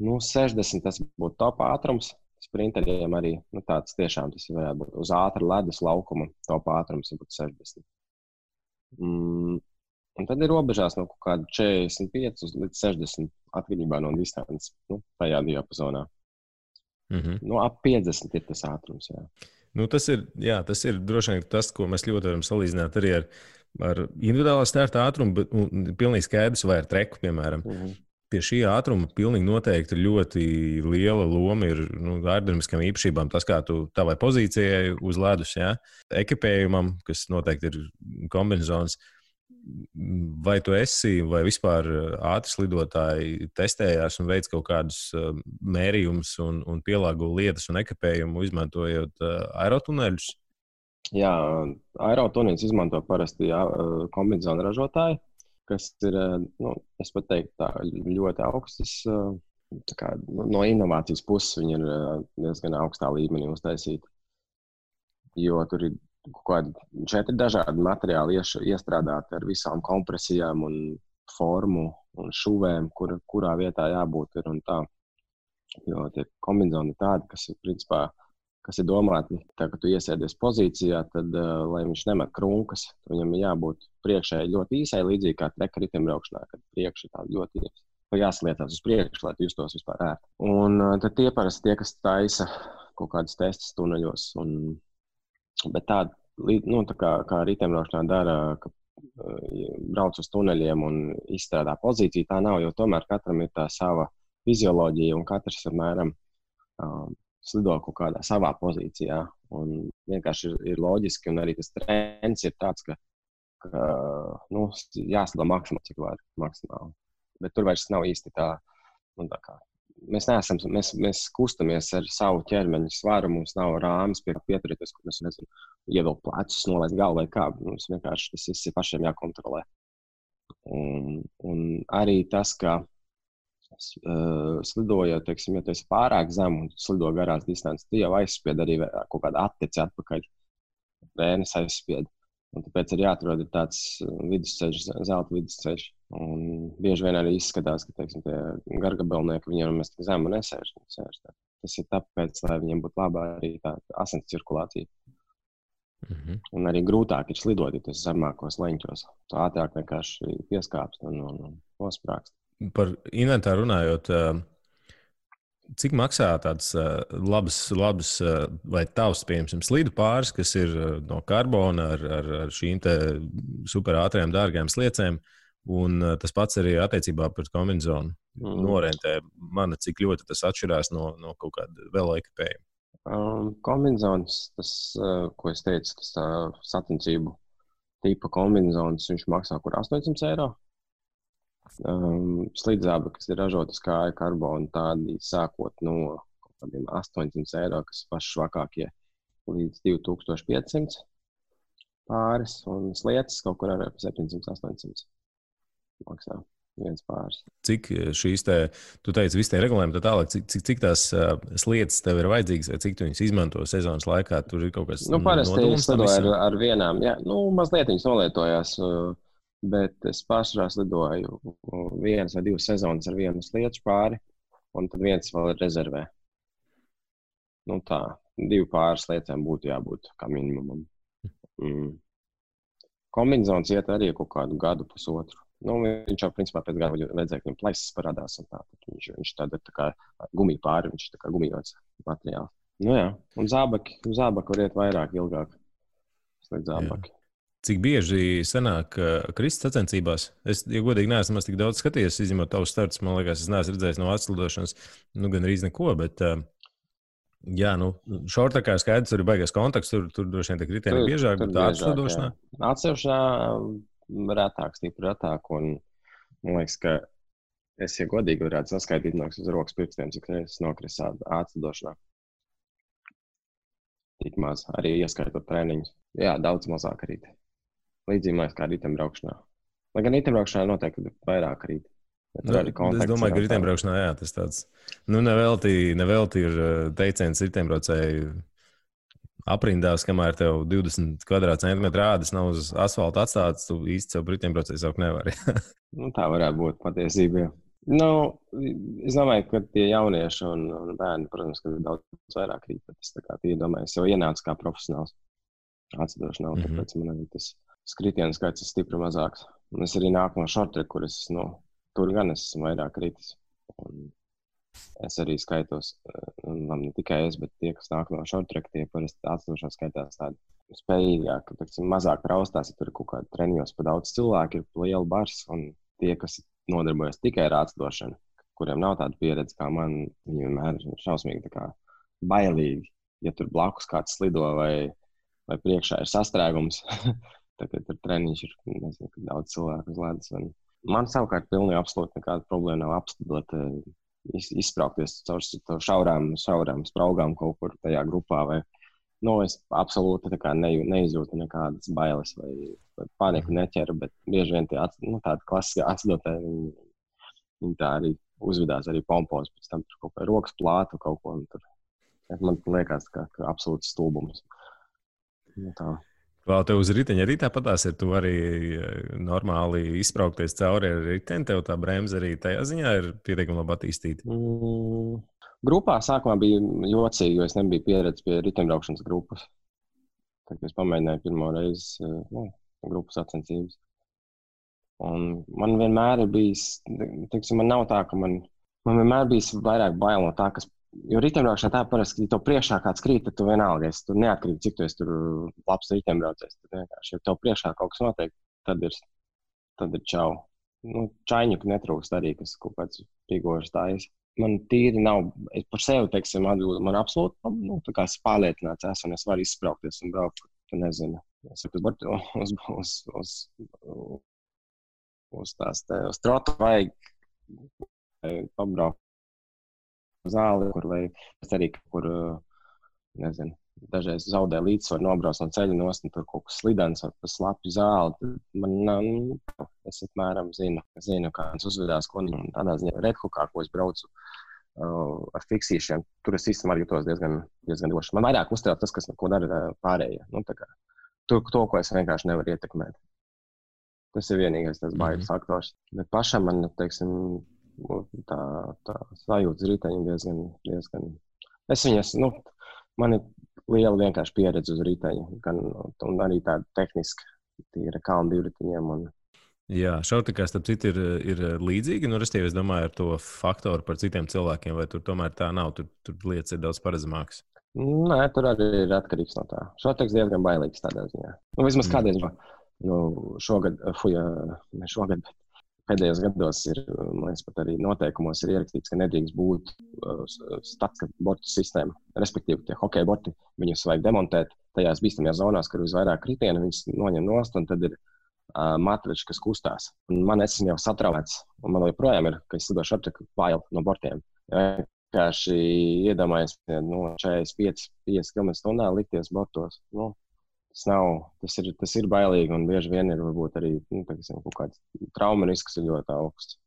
60 tas būtu top ātrums. Sprinteriem arī tāds tiešām tas varētu būt uz ātra ledus laukuma top ātrums būtu 60. Un tad ir robežās no kaut kāda 45 līdz 60 atkarībā no distances, tajā diapazonā. Ap 50 ir tas ātrums, jā.
Tas ir droši vien tas, ko mēs ļoti varam salīdzināt arī ar individuālā starta ātrumu, bet pilnīgi skaidrs vai ar treku, piemēram. Pie šī ātruma pilnīgi noteikti ļoti liela loma ir aerodinamiskām īpašībām. Tas, kā tu tavai pozīcijai uz ledus, ekipējumam, kas noteikti ir kombinezons. Vai tu esi, vai vispār ātri slidotāji testējās un veic kaut kādus mērījumus un pielāgo lietas un ekipējumu, izmantojot aerotuneļus?
Jā, aerotuneļus izmanto parasti kombinezonu ražotāji, kas ir, es pat teiktu, tā ļoti augstas, no inovācijas puses viņi ir diezgan augstā līmenī uztaisīti. Jo tur ir kaut kādi 4 dažādi materiāli iestrādāti ar visām kompresijām un formu un šuvēm, kurā vietā jābūt ir un tā. Jo tie kombinezoni ir tādi, kas ir principā, kas ir domāti, tā, ka tu iesēdies pozīcijā, tad, lai viņš nemet krunkas, viņam ir jābūt priekšēji ļoti īsai, līdzīgi kā treka riteņbraukšanā, kad priekši tā ļoti jāslietās uz priekšu, lai tu justos vispār ērti. Un tad tie parasti tie, kas taisa kaut kādas testas tuneļos. Bet tā kā riteņbraukšanā dara, ka brauc uz tuneļiem un izstrādā pozīciju, tā nav, jo tomēr katram ir tā sava fizioloģija un katrs apmēram slido kaut kādā savā pozīcijā. Un vienkārši ir loģiski, un arī tas trends ir tāds, ka jāslido maksimāli, cik var maksimāli. Bet tur vairs nav īsti tā kā. Mēs kustamies ar savu ķermeņa svaru, mums nav rāmis pie pieturēties, kur mēs ievilkt plecus, nolaist galvu vai kā. Mums vienkārši tas viss ir pašiem jākontrolē. Un arī tas, ka slidojot, teiksim, ja tu esi pārāk zem un slido garās distances, tu jau aizspied arī kaut kādu atteci atpakaļ. Vēnes aizspied. Un tāpēc ir jāatrod tāds vidusceļš, zelta vidusceļš. Un bieži vien arī izskatās, ka, teiksim, tie gargabelnieki viņiem mēs tik zemu nesēž. Tas ir tāpēc, lai viņiem būtu labā arī tā asins cirkulācija. Un arī grūtāk ir slidot, ja tas zemākos leņķos. Tu ātrāk vienkārši pieskāpst un nosprākst.
Par inventāru runājot, cik maksā tāds labs vai tavs, piemēram, slidu pāris, kas ir no karbona ar šīm te super ātrajām dārgajām sliecēm, Un tas pats arī attiecībā pret kombināciju norentē. Man cik ļoti tas atšķirās no kaut kāda vēl ekipējuma.
Kombinācijas, tas, ko es teicu, tas sacensību tipa kombinācijas, viņš maksā kur 800 eiro. Slīdzāba, kas ir ražotas kāja karbona, tādi sākot no kaut kādiem 800 eiro, kas ir paši švakākie, līdz 2500 pāris, un slietas kaut kur ar 700-800 maksā viens pāris.
Cik šīs tu teici, visi tie regulējumi, tālāk, cik tās slietas tev ir vajadzīgas, vai cik tu viņas izmanto sezonas laikā? Tur ir kaut kas
parasti es lidoju ar vienām, jā, mazliet viņas nolietojās, bet es pārsvarā lidoju 1 vai 2 sezonas ar vienu slietu pāri, un tad viens vēl ir rezervē. Tā, 2 pāris lietām būtu jābūt kā minimumam. Kombinācijas iet arī kaut kādu gadu, pusotru. Viņš jau principā pēc gada redzēja, ka viņam plaisas parādās. Viņš tāda tā kā gumija pāri, viņš tā kā gumijots materiāls. Jā, un zābaki var iet vairāk, ilgāk. Slēdz zābaki.
Cik bieži sanāk kristas sacensībās? Es, ja godīgi, neesmu tik daudz skatījies, izņemot tavus startus. Man liekas, es neesmu redzējis no atslidošanas, gan arī neko, bet jā, šortakā skaidrs, tur ir baigais kontakts, tur droši vien tiek riteņi biežāk, bet atslidošanā?
Atsevišķā retāk, stipri retāk, un man liekas, ka es, ja godīgi varētu saskaitīt no uz rokas pirkstiem, cik reizes nokris atslidošanā. Tik maz, arī ieskaitot treniņus. Jā, daudz mazāk rīt. Līdzīgi kā riteņbraukšanā. Lai gan riteņbraukšanā noteikti vairāk rīt.
Es domāju, ka riteņbraukšanā, jā, tas tāds, nevelti ir teiciens riteņbraucēji aprindās, kamēr tev 20 kvadrātcentimetru ādas nav uz asfalta atstāts, tu īsti sev riteņbraucēji saukt nevari.
Tā varētu būt patiesība. Es domāju, ka tie jaunieši un bērni, protams, ka daudz vairāk rīt, bet es tā kā iedomāju, es jau ienācu kā profesionāls atslidošanā, tāpēc man arī tas skritienu skaits ir stipri mazāks. Un es arī nāku no shorttrack, kur es, tur gan es esmu vairāk kritis. Un es arī skaitos, ne tikai es, bet tie, kas nāk no shorttrack, tie parasti atslidošanā skaitās tādi spējīgāk, mazāk traustās, ja tur ir kaut kādi treniņos pa daudz cilvēku, ir liela bars, un tie, kas nodarbojas tikai ar atslidošanu, kuriem nav tāda pieredze kā man, viņi vienmēr ir šausmīgi tā kā bailīgi, ja tur blakus kāds slido vai priekšā ir sastrēgums. Tagad tur treniņš ir, nezinu, daudz cilvēku uz ledus. Man savukārt pilnīgi absolūti nekāda problēma nav apstādot, izspraukties caur šaurām spraugām kaut kur tajā grupā. Es absolūti tā kā neizjūtu nekādas bailes vai paniku neķeru, bet bieži vien tāda klasiskā atslidotāji, viņi tā arī uzvedās arī pompos, pēc tam tur kaut kā rokas plātu kaut ko. Man liekas, ka absolūts stulbums.
Vēl tev uz riteņa arī tāpatās ir, tu arī normāli izspraukties cauri ar riteni, tev tā bremze arī tajā ziņā ir pietiekami labi attīstīta?
Grupā sākumā bija jocīgi, jo es nebiju pieredzis pie riteņbraukšanas grupas. Tad es pamēģināju pirmo reizi grupas sacensības. Un man vienmēr ir bijis, man nav tā, ka man vienmēr bijis vairāk bail no tā, kas. Jo riteņbraukšanā tā parasti, ja tev priekšā kāds krīt, tad tu vienalga, tu neatkarīgi, cik tu esi tur labs riteņbraucējs. Tad vienkārši, ja tev priekšā kaut kas notiek, tad ir čau. Čaiņuku netrūkst arī, kas kaut kāds pigožas tājas. Man tīri nav, es par sevi, teiksim, atbildu, man absolūti, tā kā es pārliecināts esmu, un es varu izspraukties un braukt, tu nezinu. Es uz trotu vajag pabraukt. Zāli, kur vai es arī kur, nezinu, dažreiz zaudē līdzsvaru nobrauc no ceļa nost, un tur kaut kas slidens vai pa slapju zāli. Es apmēram zinu, kā viņš uzvedās, ko un tādā ziņā redhukā, ko es braucu ar fiksīšiem. Tur es īstenībā jūtos diezgan droši. Man vairāk uztrauc tas, ko dara pārējie. To, ko es vienkārši nevaru ietekmēt. Tas ir vienīgais tas bailes faktors. Bet pašam man, teiksim, tā sajūtas riteņi diezgan. Es viņas, man ir liela vienkārši pieredze uz riteņu, un arī tāda tehniska, tīra kalnu divriteņiem.
Jā, šortakā starp citu ir līdzīgi, restīvi es domāju ar to faktoru par citiem cilvēkiem, vai tur tomēr tā nav, tur lietas ir daudz paredzamākas?
Nē, tur arī ir atkarīgs no tā. Šortaks diezgan bailīgs tādā ziņā. Vismaz kādreiz, jo šogad, bet pēdējos gados ir, man liekas, pat arī noteikumos ir ierakstīts, ka nedrīkst būt statika bortu sistēma. Respektīvi, tie hokeja borti, viņus vajag demontēt tajās bīstamajās zonās, kur visvairāk kritienu, viņus noņem nost, un tad ir matrači, kas kustās. Un man esmu jau satraumēts, un man joprojām ir, ka es slidošu šortreku bail no bortiem. Vienkārši iedomājies 45 km/h likties bortos. Tas ir bailīgi, un bieži vien ir varbūt arī kaut kāds trauma risks ir ļoti augsts.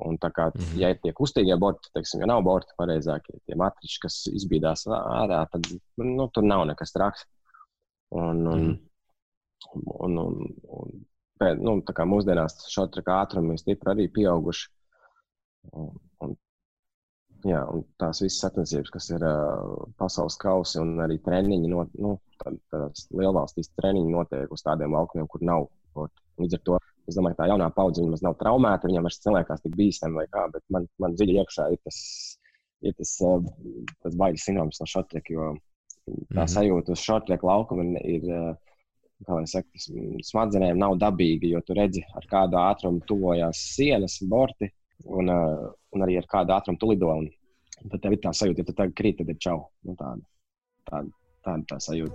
Un tā kā, ja ir tie kustīgie borti, ja nav borti pareizākie, tie matriči, kas izbīdās ārā, tad tur nav nekas traks. Tā kā mūsdienās šortreka ātrumi stipri arī pieauguši. Un tās visas sacensības, kas ir pasaules kausi un arī treniņi, tādās lielvalstīs treniņi notiek uz tādiem laukumiem, kur nav borti. Līdz ar to, es domāju, ka tā jaunā paudze viņam nav traumēta, viņam vairs cilvēkās tik bīstami vai kā, bet man dziļi iekšā ir tas baiļu sindroms no šortreka, jo tā sajūta uz šortreka laukuma ir, kā lai saka, smadzenēm nav dabīga, jo tu redzi, ar kādu ātrumu tuvojās sienas, borti, un arī ar kādu ātrumu tu lido. Un tad tev ir tā sajūta, ja tu tagad krīt, tad ir čau. Tāda tā sajūta.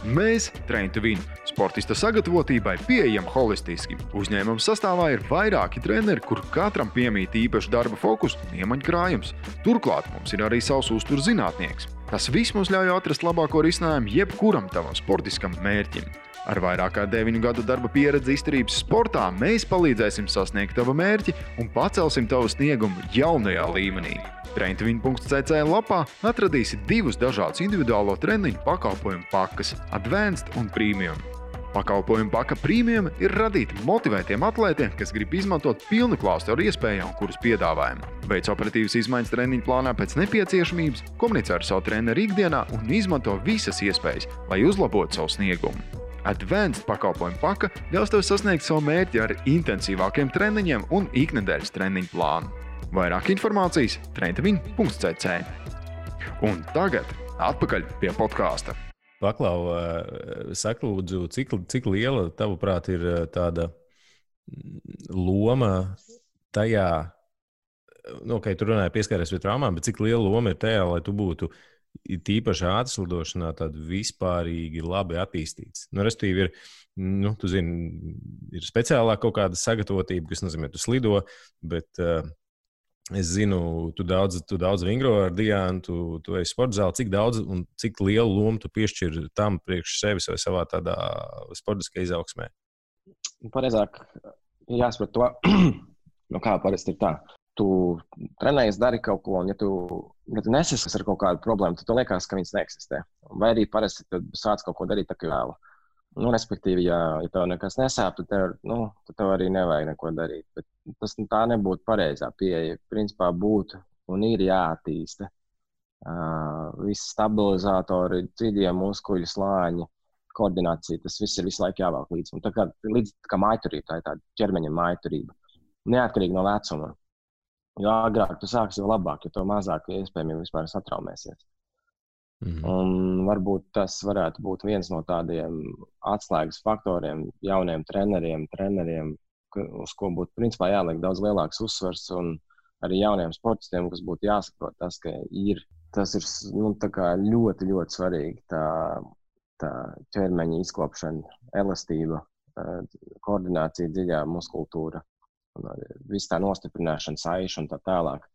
Mēs, Train to Win, sportista sagatavotībai pieejam holistiski. Uzņēmuma sastāvā ir vairāki treneri, kur katram piemīt īpaši darba fokus un iemaņkrājums. Turklāt mums ir arī savs uzturzinātnieks. Tas viss mums ļauj atrast labāko risinājumu jebkuram tavam sportiskam mērķim. Ar vairāk kā 9 gadu darba pieredzi izturības sportā mēs palīdzēsim sasniegt tavu mērķi un pacelsim tavu sniegumu jaunajā līmenī. Traintvin.cc lapā atradīsi 2 dažādus individuālo treniņu pakalpojumu pakas – Advanced un Premium. Pakalpojumu paka Premium ir radīta motivētiem atlētiem, kas grib izmantot pilnu klāstu ar iespējām, kuras piedāvājam. Veic operatīvas izmaiņas treniņu plānā pēc nepieciešamības, komunicē ar savu treneru ikdienā un izmanto visas iespējas, lai uzlabotu savu sniegumu. Advanced pakalpojumu paka ļaus tev sasniegt savu mērķi ar intensīvākiem treniņiem un iknedēļas treniņu plānu. Vairāk informācijas traintvin.cc. Un tagad atpakaļ pie podkāsta.
Paklau, saka lūdzu, cik liela, tavuprāt, ir tāda loma tajā, tu runāji pieskaries pie traumām, bet cik liela loma ir tajā, lai tu būtu tīpaši ātrslidošanā tāda vispārīgi labi attīstīts. Restīvi ir, tu zini, ir speciālā kaut kāda sagatavotība, kas nozīmē, tu slido, bet es zinu, tu daudz vingro ar Diānu, tu esi sporta zāli, cik daudz un cik lielu lomu tu piešķir tam priekš sevis vai savā tādā sportiskā izaugsmē?
Pareizāk ir jāsaprot to, kā parasti ir tā. Tu trenējies, dari kaut ko, un ja tu nesaskars ar kaut kādu problēmu, tad tu liekas, ka viņas neeksistē. Vai arī parasti tad sāc kaut ko darīt tā kā vēlu. Respektīvi, ja tev nekas nesāp, tad tev arī nevajag neko darīt. Bet tā nebūtu pareizā pieeja. Principā būtu un ir jāattīsta. Visi stabilizatori, dziļie muskuļu slāņi, koordinācija, tas viss ir visu laiku jāvelk līdzi. Un tā kā mājturība, tā ir tāda ķermeņa mājturība. Neatkarīgi no vecuma. Jo agrāk tu sāksi, jo labāk, jo to mazāk iespējami vispār satraumēsies. Un varbūt tas varētu būt viens no tādiem atslēgas faktoriem jauniem treneriem, uz ko būtu principā jāliek daudz lielāks uzsvars, un arī jauniem sportistiem, kas būtu jāsaprot tas, ka tas ir tā kā ļoti, ļoti svarīgi tā ķermeņa izkopšana, elastība, koordinācija, dziļā muskultūra, viss tā nostiprināšana, saiša un tā tālāk.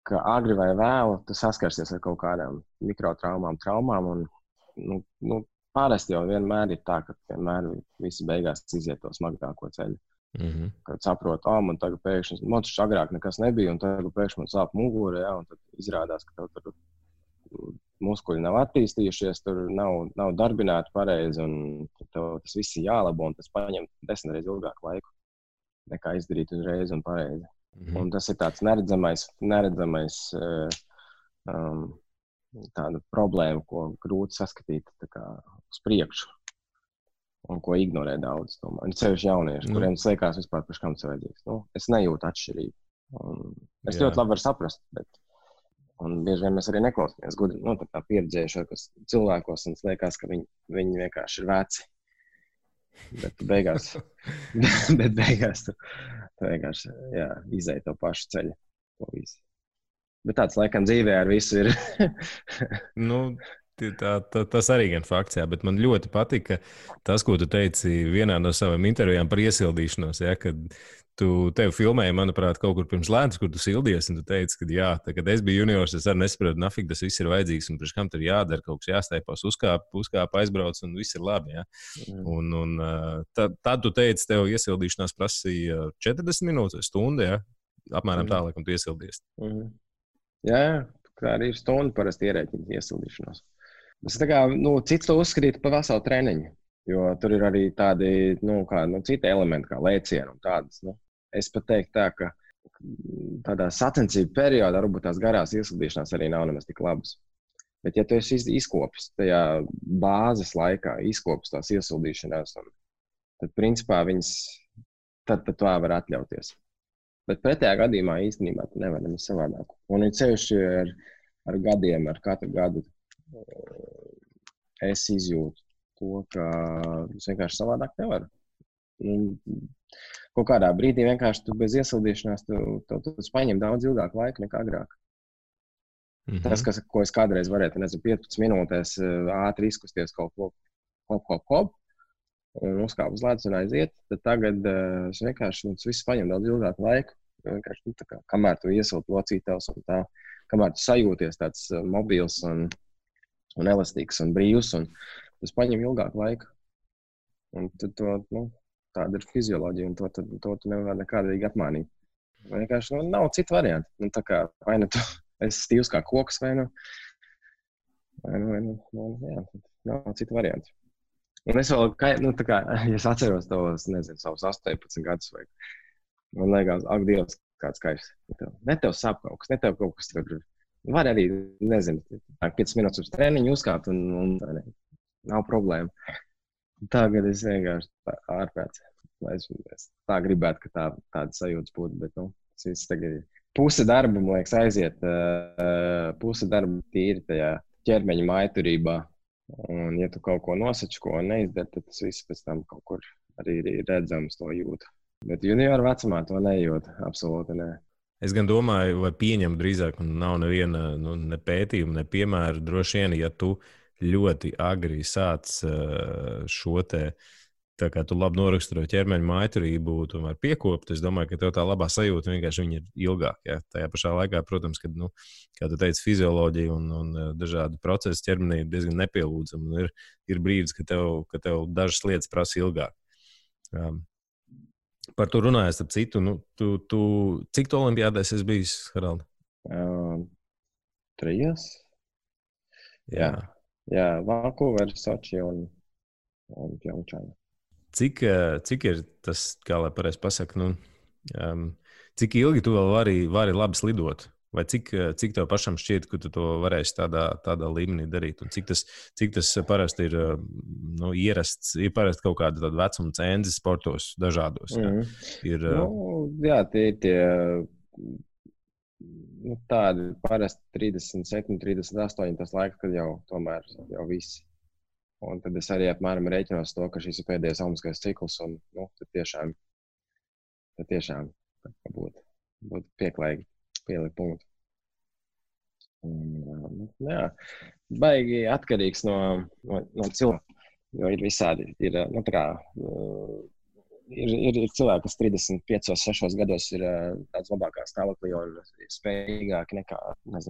Ka agri vai vēlu tu saskarsies ar kaut kādām mikrotraumām, traumām, un pārasti jau vienmēr ir tā, ka vienmēr visi beigās iziet to smagāko ceļu. Kad saprot, man tagad pēkšņi, man taču agrāk nekas nebija, un tagad pēkšņi man sāp mugura, un tad izrādās, ka tev tur muskuļi nav attīstījušies, tur nav darbināti pareizi, un tev tas viss ir jālabo, un tas paņem 10 reizes ilgāku laiku, nekā izdarīt uzreiz un pareizi. Un tas ir tāds neredzamais tāda problēma, ko grūti saskatīt uz priekšu un ko ignorē daudz. Ir sevišķi jaunieši, kuriem tas liekas vispār par kam tas vajadzīgs. Es nejūtu atšķirību. Es ļoti labi varu saprast, un bieži vien mēs arī neklausāmies gudri, tā pieredzējušākos cilvēkos, un es liekas, ka viņi vienkārši ir veci. Bet beigās tu vienkārši izēji to pašu ceļu. To visu. Bet tāds laikam dzīvē ar visu ir.
Tas arī gan fakts, jā, bet man ļoti patika tas, ko tu teici vienā no savām intervijām par iesildīšanos, ja, kad tev filmēja, manuprāt, kaut kur pirms ledus, kur tu sildies, un tu teici, ka jā, tā, kad es biju juniors, es arī nesaprotu, nafik tas viss ir vajadzīgs, un priekš kam tur jādara, kaut kas jāstaipās, uzkāp, aizbrauc, un viss ir labi, ja. Tad tu teici, tev iesildīšanās prasīja 40 minūtes vai stundu, ja, apmēram tā, laikam tu iesildies.
Jā, kā arī ir stundu parasti ierēķina iesildīšanos. Es cits to uzskatītu par veselu treniņu, jo tur ir arī tādi, citi elementi, kā lēcieni un tādas. Es pat teiktu tā, ka tādā sacensību periodā varbūt tās garās iesildīšanās arī nav nemaz tik labas. Bet ja tu esi izkopis tajā bāzes laikā, izkopis tās iesildīšanās, tad principā viņas, tad tu var atļauties. Bet pretējā gadījumā īstenībā tu nevar nemaz savādāk. Un ir sevišķi ar gadiem, ar katru gadu es izjūtu to, ka es vienkārši savādāk nevaru. Kaut kādā brīdī vienkārši tu bez iesildīšanās tu paņem daudz ilgāku laiku nekā agrāk. Tas, ko es kādreiz varētu, 15 minūtēs ātri izkusties kaut ko, un uzkāp uz ledus un aiziet, tad tagad es vienkārši viss paņem daudz ilgāku laiku. Vienkārši, kamēr tu iesildi locītavs un tā, kamēr tu sajūties tāds mobils un elastīgs un brīvs, un tas paņem ilgāku laiku. Un tad tāda ir fizioloģija, un to tu nevar nekādīgi apmānīt. Vienkārši nav citu variantu. Vai nu tu esi stīvs kā koks, vai nav citu variantu. Un es vēl, ja es atceros tos, savus 18 gadus, vai man liekas, ak, Dievs, kāds kairs. Ne tev sāp kaut kas, ne tev kaut kas tur. Var arī, 5 minūtes uz treniņu uzkāpt un nav problēma. Tagad es vienkārši ārprāts. Es tā gribētu, ka tāda sajūtas būtu, bet, tas viss tagad ir. Puse darba, man liekas, aiziet, puse darba tīri tajā ķermeņa mājturībā. Un, ja tu kaut ko nosači, ko neizdari, tad tas viss pēc tam kaut kur arī ir redzams, to jūt. Bet junioru vecumā to nejūt, absolūti ne.
Es gan domāju, vai pieņemu drīzāk, un nav neviena ne pētījuma, ne piemēra. Droši vien, ja tu ļoti agri sāc šo te, tā kā tu labi noraksturo ķermeņa mājturību, tomēr piekopt, es domāju, ka tev tā labā sajūta vienkārši viņa ir ilgāk. Ja? Tajā pašā laikā, protams, kad, kā tu teici, fizioloģija un dažādi procesi ķermenī ir diezgan nepielūdzami. Ir brīdis, ka tev dažas lietas prasa ilgāk. Par to runājot, ap citu, cik tu olimpiādēs esi bijis, Haraldi?
3. Jā, Vancouver, Soči un Pjongčāna.
Cik ir tas, kā lai pareizi pasaka, cik ilgi tu vēl vari labi slidot? Vai cik tev pašam šķiet, ka tu to varēsi tādā līmenī darīt? Un cik tas parasti ir ierasts, ir parasti kaut kāda tāda vecuma cenzi sportos dažādos?
Jā, tie ir tie tādi parasti 37, 38 tas laiks, kad jau visi. Un tad es arī apmēram rēķinos to, ka šis ir pēdējais olimpiskais cikls, un tad tiešām būtu pieklājīgi pielikt punktu. Jā, baigi atkarīgs no cilvēka, jo ir visādi. Ir cilvēki, kas 35, 6 gados ir tāds labākā stāvoklī un ir spējīgāki nekā,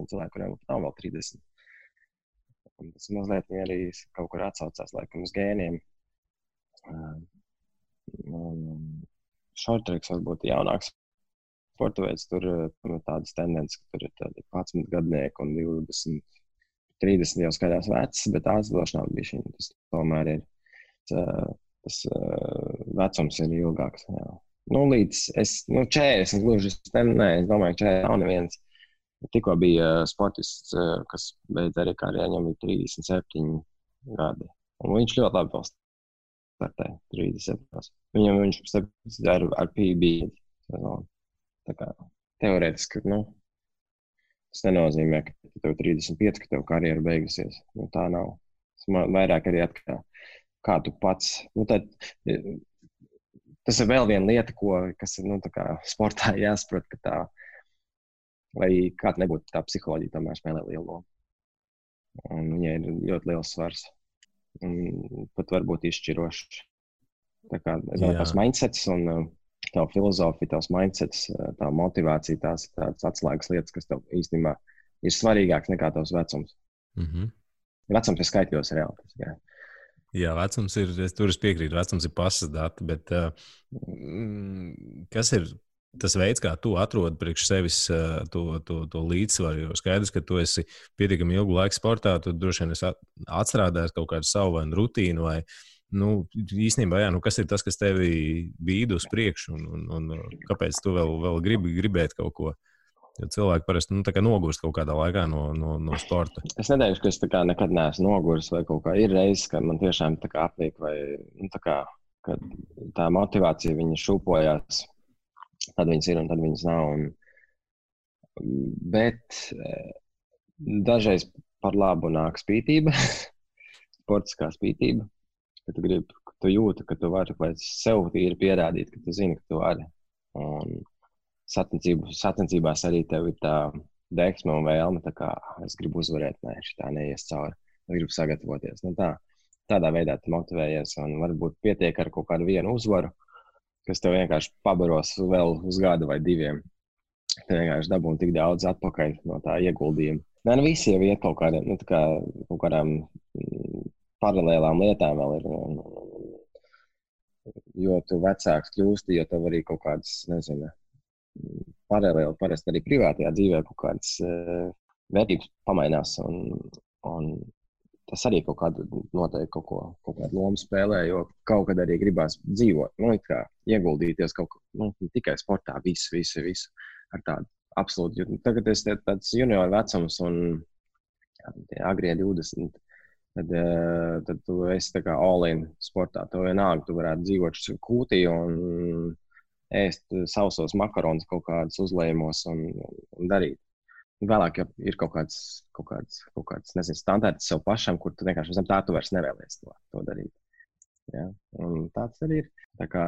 cilvēki, kuriem nav vēl 30. Un tas mazliet arī kaut kur atsaucās laikam uz gēniem. Shorttracks varbūt jaunāks sporta veids, tur tādas tendences, ka tur ir tādi 11 gadnieki un 20, 30 jau skaidrs vecs, bet aizdošanā bišķiņ. Tas tomēr ir, tas vecums ir ilgāks. Jā. Līdz 40 gluži, es domāju, ka 40 nav neviens. Tikko bija sportists, kas beidz arī karjeru, viņam bija 37 gadi. Un viņš ļoti labi vēl startēja 37. Viņš ar PB sezonu. Tā kā teorētiski, tas nenozīmē, ka tev 35, ka tev karjera beigusies. Tā nav. Tas vairāk arī atkarā. kā tu pats. Tas ir vēl viena lieta, kas ir tā kā sportā jāsaprot, ka tā, lai kāda nebūtu tā psiholoģija, tomēr spēlē lielu lomu. Un viņai ir ļoti liels svars. Un pat varbūt izšķirošs. Tā kā tās mindsets un tā filozofija, tās mindsets, tā motivācija, tās ir tādas atslēgas lietas, kas tev īstenībā ir svarīgāks nekā tavs vecums. Vecums ir skaitļos reāli.
Jā, vecums ir, tur es piekrītu, vecums ir pasas dati, bet kas ir tas veids, kā tu atrodi priekš sevis to līdzsvaru? Jo skaidrs, ka tu esi pietiekami ilgu laiku sportā, tu droši vien esi atstrādājis kaut kādu savu vai rutīnu, vai īstenībā, kas ir tas, kas tevi bīda uz priekšu, un kāpēc tu vēl gribēt kaut ko? Jo cilvēki parasti nogurst kaut kādā laikā no sporta.
Es neteikšu, ka es nekad neesmu nogurst vai kaut kā. Ir reizes, kad man tiešām apnīk vai kad tā motivācija viņa šūpojās. Tad viņas ir un tad viņas nav. Bet dažreiz par labu nāk spītība, sportiskā spītība, ka tu jūti, ka tu vari vai sev tīri pierādīt, ka tu zini, ka tu vari. Un sacensībās arī tev ir tā deksme un vēlme, tā kā es gribu uzvarēt, šitā neies cauri, es gribu sagatavoties. Tādā veidā tu motivējies un varbūt pietiek ar kaut kādu vienu uzvaru, kas tev vienkārši pabaros vēl uz gadu vai diviem. Tev vienkārši dabūn tik daudz atpakaļ no tā ieguldījuma. Visi jau iet kaut kādām paralēlām lietām vēl ir. Jo tu vecāks kļūsti, jo tev arī kaut kādas, paralēli parasti arī privātajā dzīvē kaut kādas vērtības pamainās. Un tas arī kaut kādu noteikti kaut kādu lomu spēlē, jo kaut kad arī gribās dzīvot, ieguldīties kaut ko, tikai sportā, visu ar tādu absolūti. Tagad es tāds junior vecums un agrie 20, tad tu esi tā kā all-in sportā. Tu vienalga, tu varētu dzīvot kūtī un ēst sausos makaronus kaut kādus uzlējumos un darīt. Vēlāk ir kaut kāds standarts sev pašam, kur tu vienkārši zem tā tu vairs nevēlies to darīt. Ja? Un tāds arī ir. Tā kā,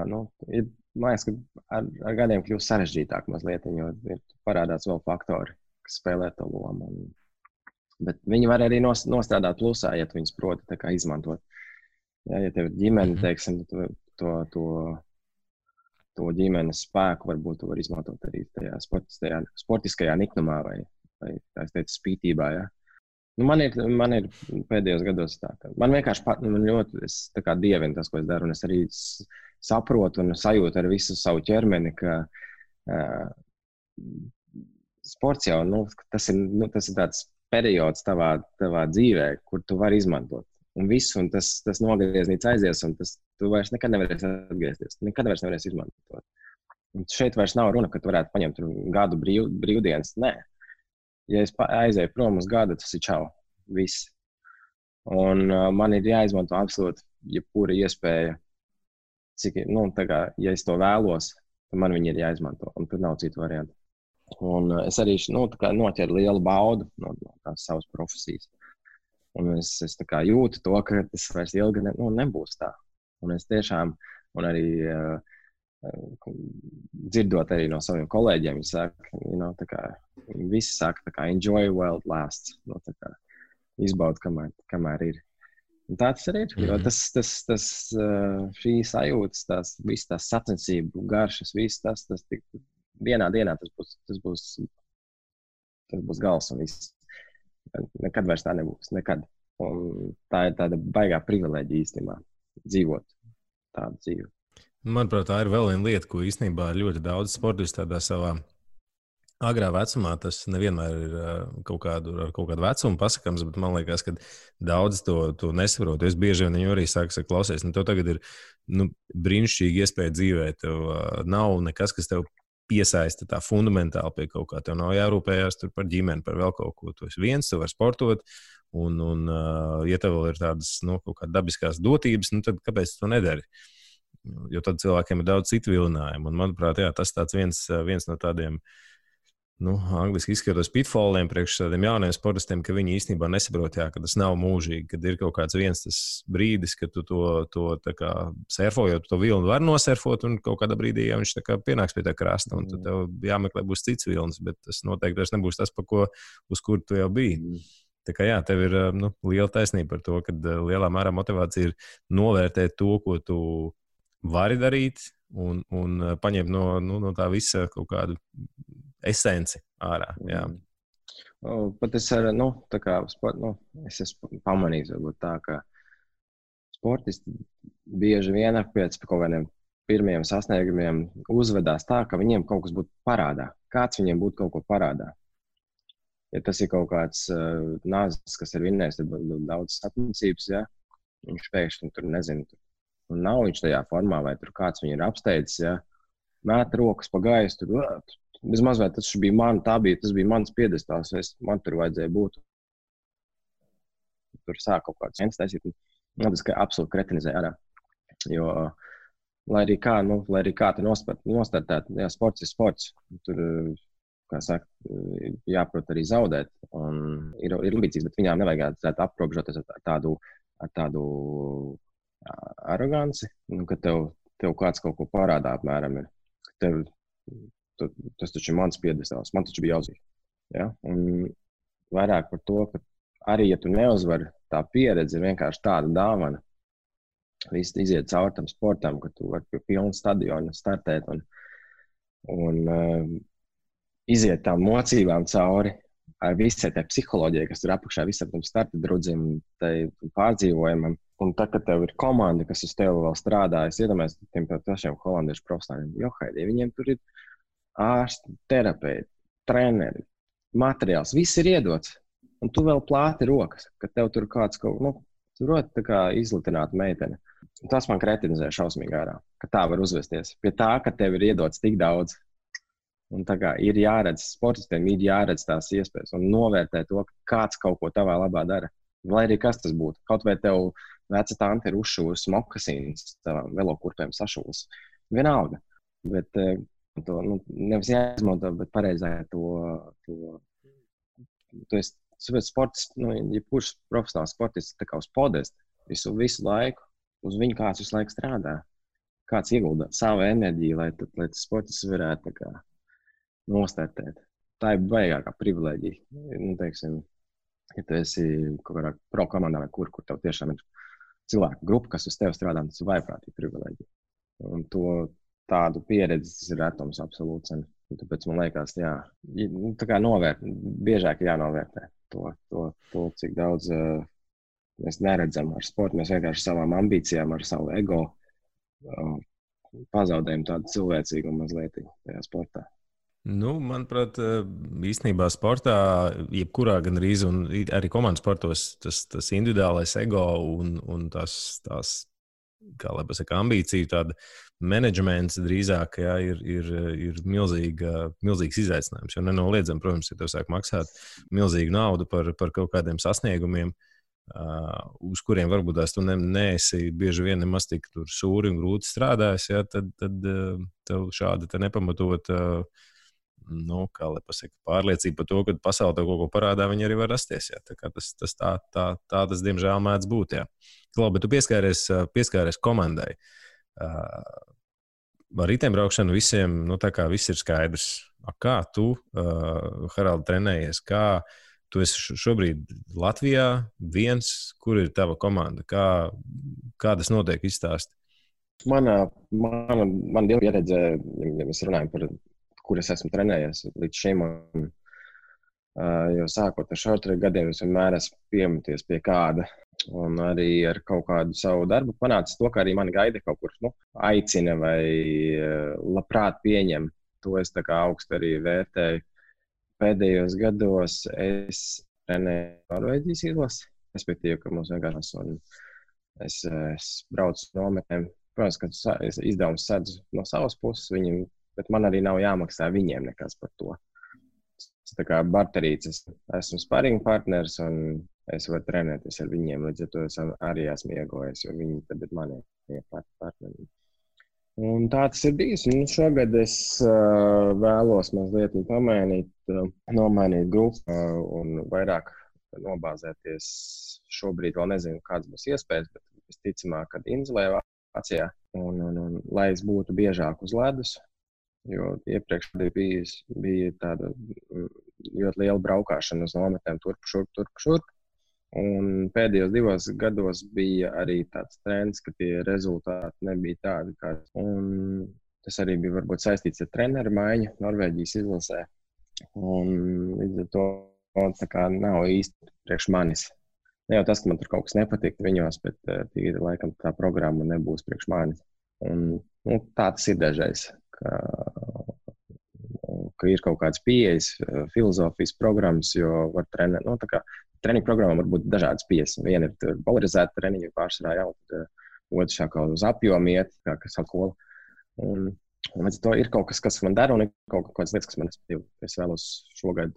ir, man liekas, ka ar gadiem kļūst sarežģītāk mazliet, jo parādās vēl faktori, kas spēlē to lomu. Bet viņi var arī nostrādāt plusā, ja tu viņus proti tā kā izmantot. Ja tev ir ģimene, teiksim, to ģimenes spēku varbūt tu var izmantot arī tajā sportiskajā niknumā vai tā es teicu, spītībā. Ja? Man ir pēdējos gados tā, ka man vienkārši es tā kā dievinu tas, ko es daru, un es arī saprotu un sajūtu ar visu savu ķermeni, ka sports jau, tas ir tāds periods tavā dzīvē, kur tu vari izmantot. Un visu, un tas nogrieznīts aizies, un tu vairs nekad nevarēsi atgriezties. Nekad vairs nevarēsi izmantot. Un šeit vairs nav runa, ka tu varētu paņemt gadu brīvdienas. Nē. Ja es aizēju prom uz gadu, tas ir čau. Viss. Un man ir jāizmanto absolūti jebkura iespēja. Ja es to vēlos, tad man viņi ir jāizmanto. Un tur nav citu variantu. Un es arī noķeru lielu baudu no tās savas profesijas. Un es tā kā jūtu to, ka tas vairs ilgi nebūs tā. Un es tiešām, un arī dzirdot arī no saviem kolēģiem, viņi saka, visi saka, tā kā enjoy while it lasts. Izbaud, kamēr ir. Un tā tas arī ir. Jo šī sajūtas, visas tās sacensību garšas, viss tas vienā dienā tas būs gals un viss. Nekad vairs tā nebūs. Nekad. Un tā ir tāda baigā privileģija īstenībā dzīvot tādu dzīvi.
Manuprāt, tā ir vēl viena lieta, ko īstenībā ļoti daudz sportisti tādā savā agrā vecumā, tas nevienmēr ir ar kaut kādu vecumu pasakams, bet man liekas, ka daudz to nesaprot. Es bieži vien arī saku, klausies, tev tagad ir brīnišķīgi iespēja dzīvēt. Tev nav nekas, kas tev piesaista tā fundamentāli pie kaut kā. Tev nav jārūpējās tur par ģimeni, par vēl kaut ko. Tu esi viens, tu vari sportot, un ja tev vēl ir tādas kaut kā dabiskās dotības, tad kāpēc tu to nedari? Jo tad cilvēkiem ir daudz citu vilinājumu. Un, manuprāt, tas tāds viens no tādiem angliski izskatos pitfalliem priekš tādiem jauniem sportistiem, ka viņi īstenībā nesaprot, ka tas nav mūžīgi, kad ir kaut kāds viens tas brīdis, kad tu to tā kā surfojot, to vilnu var nosurfot, un kaut kādā brīdī viņš tā kā pienāks pie tā krasta, un tad tev jāmeklē būs cits vilnis, bet tas noteikti vairs nebūs tas, uz kur tu jau biji. Tā kā tev ir liela taisnība par to, ka lielā mērā motivācija ir novērtēt to, ko tu vari darīt, un paņemt no tā visa kaut kādu esenci ārā. Jā.
Pat es es esmu pamanījis, varbūt tā, ka sportisti bieži vien pēc kaut kādiem pirmiem sasniegumiem uzvedās tā, ka viņiem kaut kas būtu parādā. Kāds viņiem būtu kaut ko parādā. Ja tas ir kaut kāds nāzis, kas ir vinnējis daudz sacensības, viņš pēkšņi tur nezinu, un nav viņš tajā formā, vai tur kāds viņu ir apsteidzis, mēt rokas pa gaisu, tur bezmaz vai tas bija tas bija mans piedestāls, man tur vajadzēja būt. Tur sāk kaut kāds viens taisīt, tas absolūti kretinizē ārā. Jo, lai arī kā tu nostartēt, sports ir sports, tur, kā saka, jāprot arī zaudēt, un ir ambīcijas, bet viņām nevajag aprobežoties ar tādu aroganci, ka tev kāds kaut ko parādā apmēram ir. Tas taču ir mans piedestāls, man taču bija jāuzvar. Ja? Un vairāk par to, ka arī, ja tu neuzvari, tā pieredze ir vienkārši tāda dāvana. Viss iziet caur tam sportam, ka tu vari pie pilna stadiona startēt un iziet tām mocībām cauri ar visai tai psiholoģijai, kas tur apakšā visam tam starta drudzim, tai pārdzīvojumam. Un tā, kad tev ir komanda, kas uz tevi vēl strādā, es iedomājos tiem pašiem holandiešu profesionāļiem, viņiem tur ir ārsti, terapeiti, treneri, materiāls, viss ir iedots. Un tu vēl plāti rokas, ka tev tur kāds tā kā izlitināta meitene. Un tas man kretinizē šausmīgi ārā, ka tā var uzvesties. Pie tā, ka tev ir iedots tik daudz. Un tā kā ir jāredz, sportistiem ir jāredz tās iespējas un novērtē to, ka kāds kaut ko tavā labā dara. Lai arī kas tas būtu. Kaut vai tev veca tante ir uzšūs mokasīnas, tavām velokurpēm sašūs. Vienalga. Bet to nevis jāizmanto, bet pareizā sports, jebkurš profesionāls sportists tā kā uz podestu visu laiku, uz viņu kāds visu laiku strādā. Kāds iegulda savu enerģiju, lai tas sportists varētu tā kā nostartēt. Tā ir baigākā privilēģija. Teiksim, ja tu esi kaut kādā pro komandā vai kur tev tiešām ir cilvēku grupa, kas uz tevi strādā, tas ir vaiprātīgi privilēģija. Un tādu pieredzi tas ir retums absolūts. Un tāpēc man liekas, tā kā biežāk jānovērtē to, cik daudz mēs neredzam ar sportu. Mēs vienkārši savām ambīcijām, ar savu ego pazaudējam tādu cilvēcīgu mazliet tajā sportā.
Manuprāt, īstenībā sportā, jebkurā gandrīz, un arī komandas sportos, tas individuālais ego un tās kā lai pasaka, ambīciju, tāda menedžments drīzāk ir milzīgs izaicinājums. Jo nenoliedzami, protams, ja tev sāk maksāt milzīgu naudu par kaut kādiem sasniegumiem, uz kuriem varbūt tu neesi bieži vien nemaz tik tur sūri un grūti strādājis, tad tev šāda nepamatot kā lai pasaka, pārliecība par to, ka pasaule tev kaut ko parādā, viņi arī var rasties. Tā kā tas diemžēl mēdz būt. Klau, bet tu pieskāries komandai. Ar riteņbraukšanu visiem, tā kā viss ir skaidrs. Kā tu, Haraldi, trenējies? Kā tu esi šobrīd Latvijā viens? Kur ir tava komanda? Kā tas notiek izstāst?
Mana pieredze, ja mēs runājam par kur es esmu trenējies līdz šim. Jo sākot ar short-track gadiem, es vienmēr esmu piemeties pie kāda. Un arī ar kaut kādu savu darbu panācis to, ka arī mani gaida kaut kur aicina vai labprāt pieņem. To es tā kā augstu arī vērtēju. Pēdējos gados es trenēju Norvēģijas izlasi, respektīvi, ka mums vienkārši es braucu nometnēm. Protams, ka izdevums sedzu no savas puses viņiem, bet man arī nav jāmaksā viņiem nekas par to. Tā kā barterīts, esmu sparring partners un es varu trenēties ar viņiem, līdz ar to es arī esmu iegojis, jo viņi tad ir mani partneri. Un tā tas ir bijis. Šogad es vēlos mazliet nomainīt grupu un vairāk nobāzēties. Šobrīd vēl nezinu, kādas būs iespējas, bet visticamāk, kad Inzelē Vācijā. Un lai es būtu biežāk uz ledus, jo iepriekš bija tāda ļoti liela braukšana uz nometnēm turp šurp. Un pēdējos 2 gados bija arī tāds trends, ka tie rezultāti nebija tādi, kādi. Un tas arī bija varbūt saistīts ar treneru maiņu Norvēģijas izlasē. Un līdz ar to tā kā nav īsti priekš manis. Ne jau tas, ka man tur kaut kas nepatīk viņos, bet tīri laikam tā programma nebūs priekš manis. Un tā tas ir dažreiz, ka ir kaut kādas pieejas, filozofijas programmas, jo var trenēt, treniņu programmām var būt dažādas pieejas. Viena ir polarizēta treniņa pārsvarā jau, tad otrs kā uz apjomu iet, kā sakola. Un līdz to ir kaut kas, kas man dara, un ir kaut kādas lietas, kas man respektīvi. Es vēlos šogad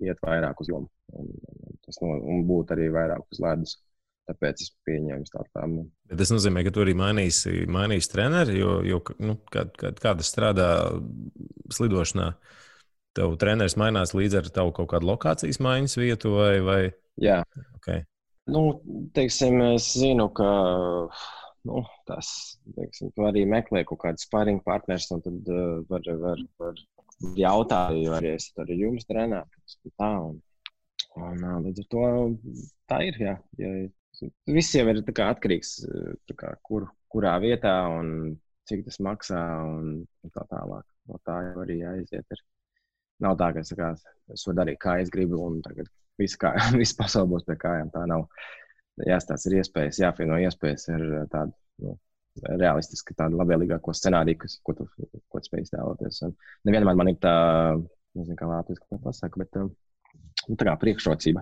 iet vairāk uz jomu, un būt arī vairāk uz ledus. Tāpēc es pieņēmu tādu.
Bet tas nozīmē, ka tu arī mainīsi treneri, jo kā tas strādā slidošanā, tev treneris mainās līdz ar tavu kaut kādu lokācijas maiņas vietu vai?
Jā.
Okay.
Teiksim, es zinu, ka tu arī meklē kaut kādu sparring partners, un tad var jautāt, vai es arī jums trenētu. Un līdz ar to tā ir, jā. Viss jau ir atkarīgs, kurā vietā un cik tas maksā un tā tālāk. No tā jau arī jāiziet. Nav tā, ka es varu darīt, kā es gribu, un tagad viss pasaule būs pie kājām. Tā nav. Jāstāsta ir iespējas, jāfieno iespējas ar tādu realistiski, tādu labvēlīgāko scenāriju, ko tu spēj iztēloties. Nevienmēr man ir tā, nezinu, kā Latvijas, kā pasaka, bet tā kā priekšrocība,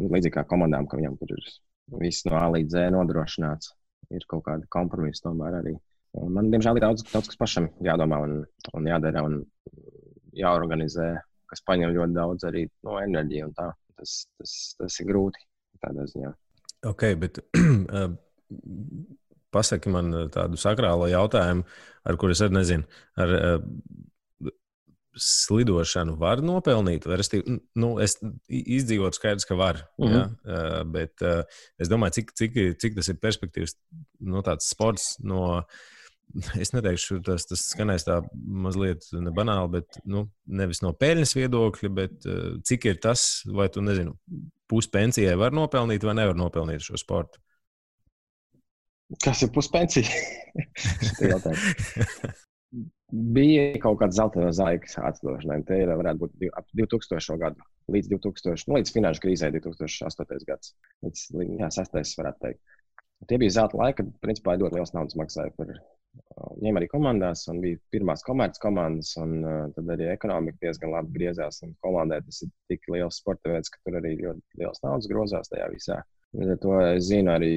līdzīgi kā komandām, ka viņam tur ir viss no A līdz Z nodrošināts, ir kaut kāda kompromisa tomēr arī. Un man, diemžēl, ir daudz kas pašam jādomā un jādara un jāorganizē, kas paņem ļoti daudz arī no enerģija un tā. Tas ir grūti tādā ziņā.
Ok, bet pasaki man tādu sakrālo jautājumu, ar kur es arī nezinu. Ar slidošanu var nopelnīt? Es izdzīvotu skaidrs, ka var. Ja? Bet es domāju, cik tas ir perspektīvs, tāds sports es neteikšu, tas skanēs tā mazliet nebanāli, bet nevis no peļņas viedokļa, bet cik ir tas, vai tu nezinu, puspensijai var nopelnīt vai nevar nopelnīt šo sportu?
Kas ir puspensija? Bija kaut kāds zeltainos laiks atdošanai. Te varētu būt ap 2000. gadu, līdz finanšu krīzē 2008. gads. Līdz 6. varētu teikt. Tie bija zelta laiki, kad principā ļoti liels naudas maksāja par ņem arī komandās, un bija pirmās komerces komandas, un tad arī ekonomika diezgan labi griezās, un komandē tas ir tik liels sporta veids, ka tur arī ļoti liels naudas grozās tajā visā. To es zinu arī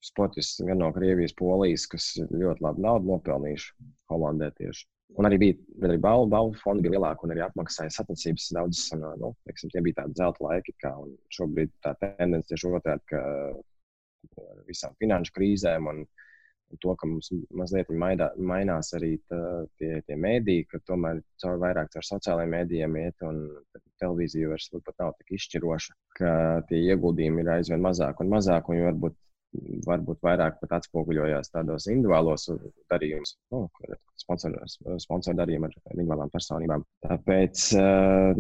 sportists gan no Krievijas, Polijas, kas ļoti labi naudu nopelnījuši Holandē tieši. Un arī bija balvu fondi bija lielāki un arī apmaksāja sacensības daudzas. Tie bija tādi zelta laiki, un šobrīd tā tendence tieši otrādi, ka ar visām finanšu krīzēm un to, ka mums mazliet mainās arī tie mēdī, ka tomēr vairāk caur sociālajiem mēdījiem iet un televīzija vairs pat nav tik izšķiroša, ka tie ieguldījumi ir aizvien mazāk un mazāk, un varbūt vairāk pat atspoguļojās tādos individuālos darījumus, sponsoru darījumu ar individuālām personībām. Tāpēc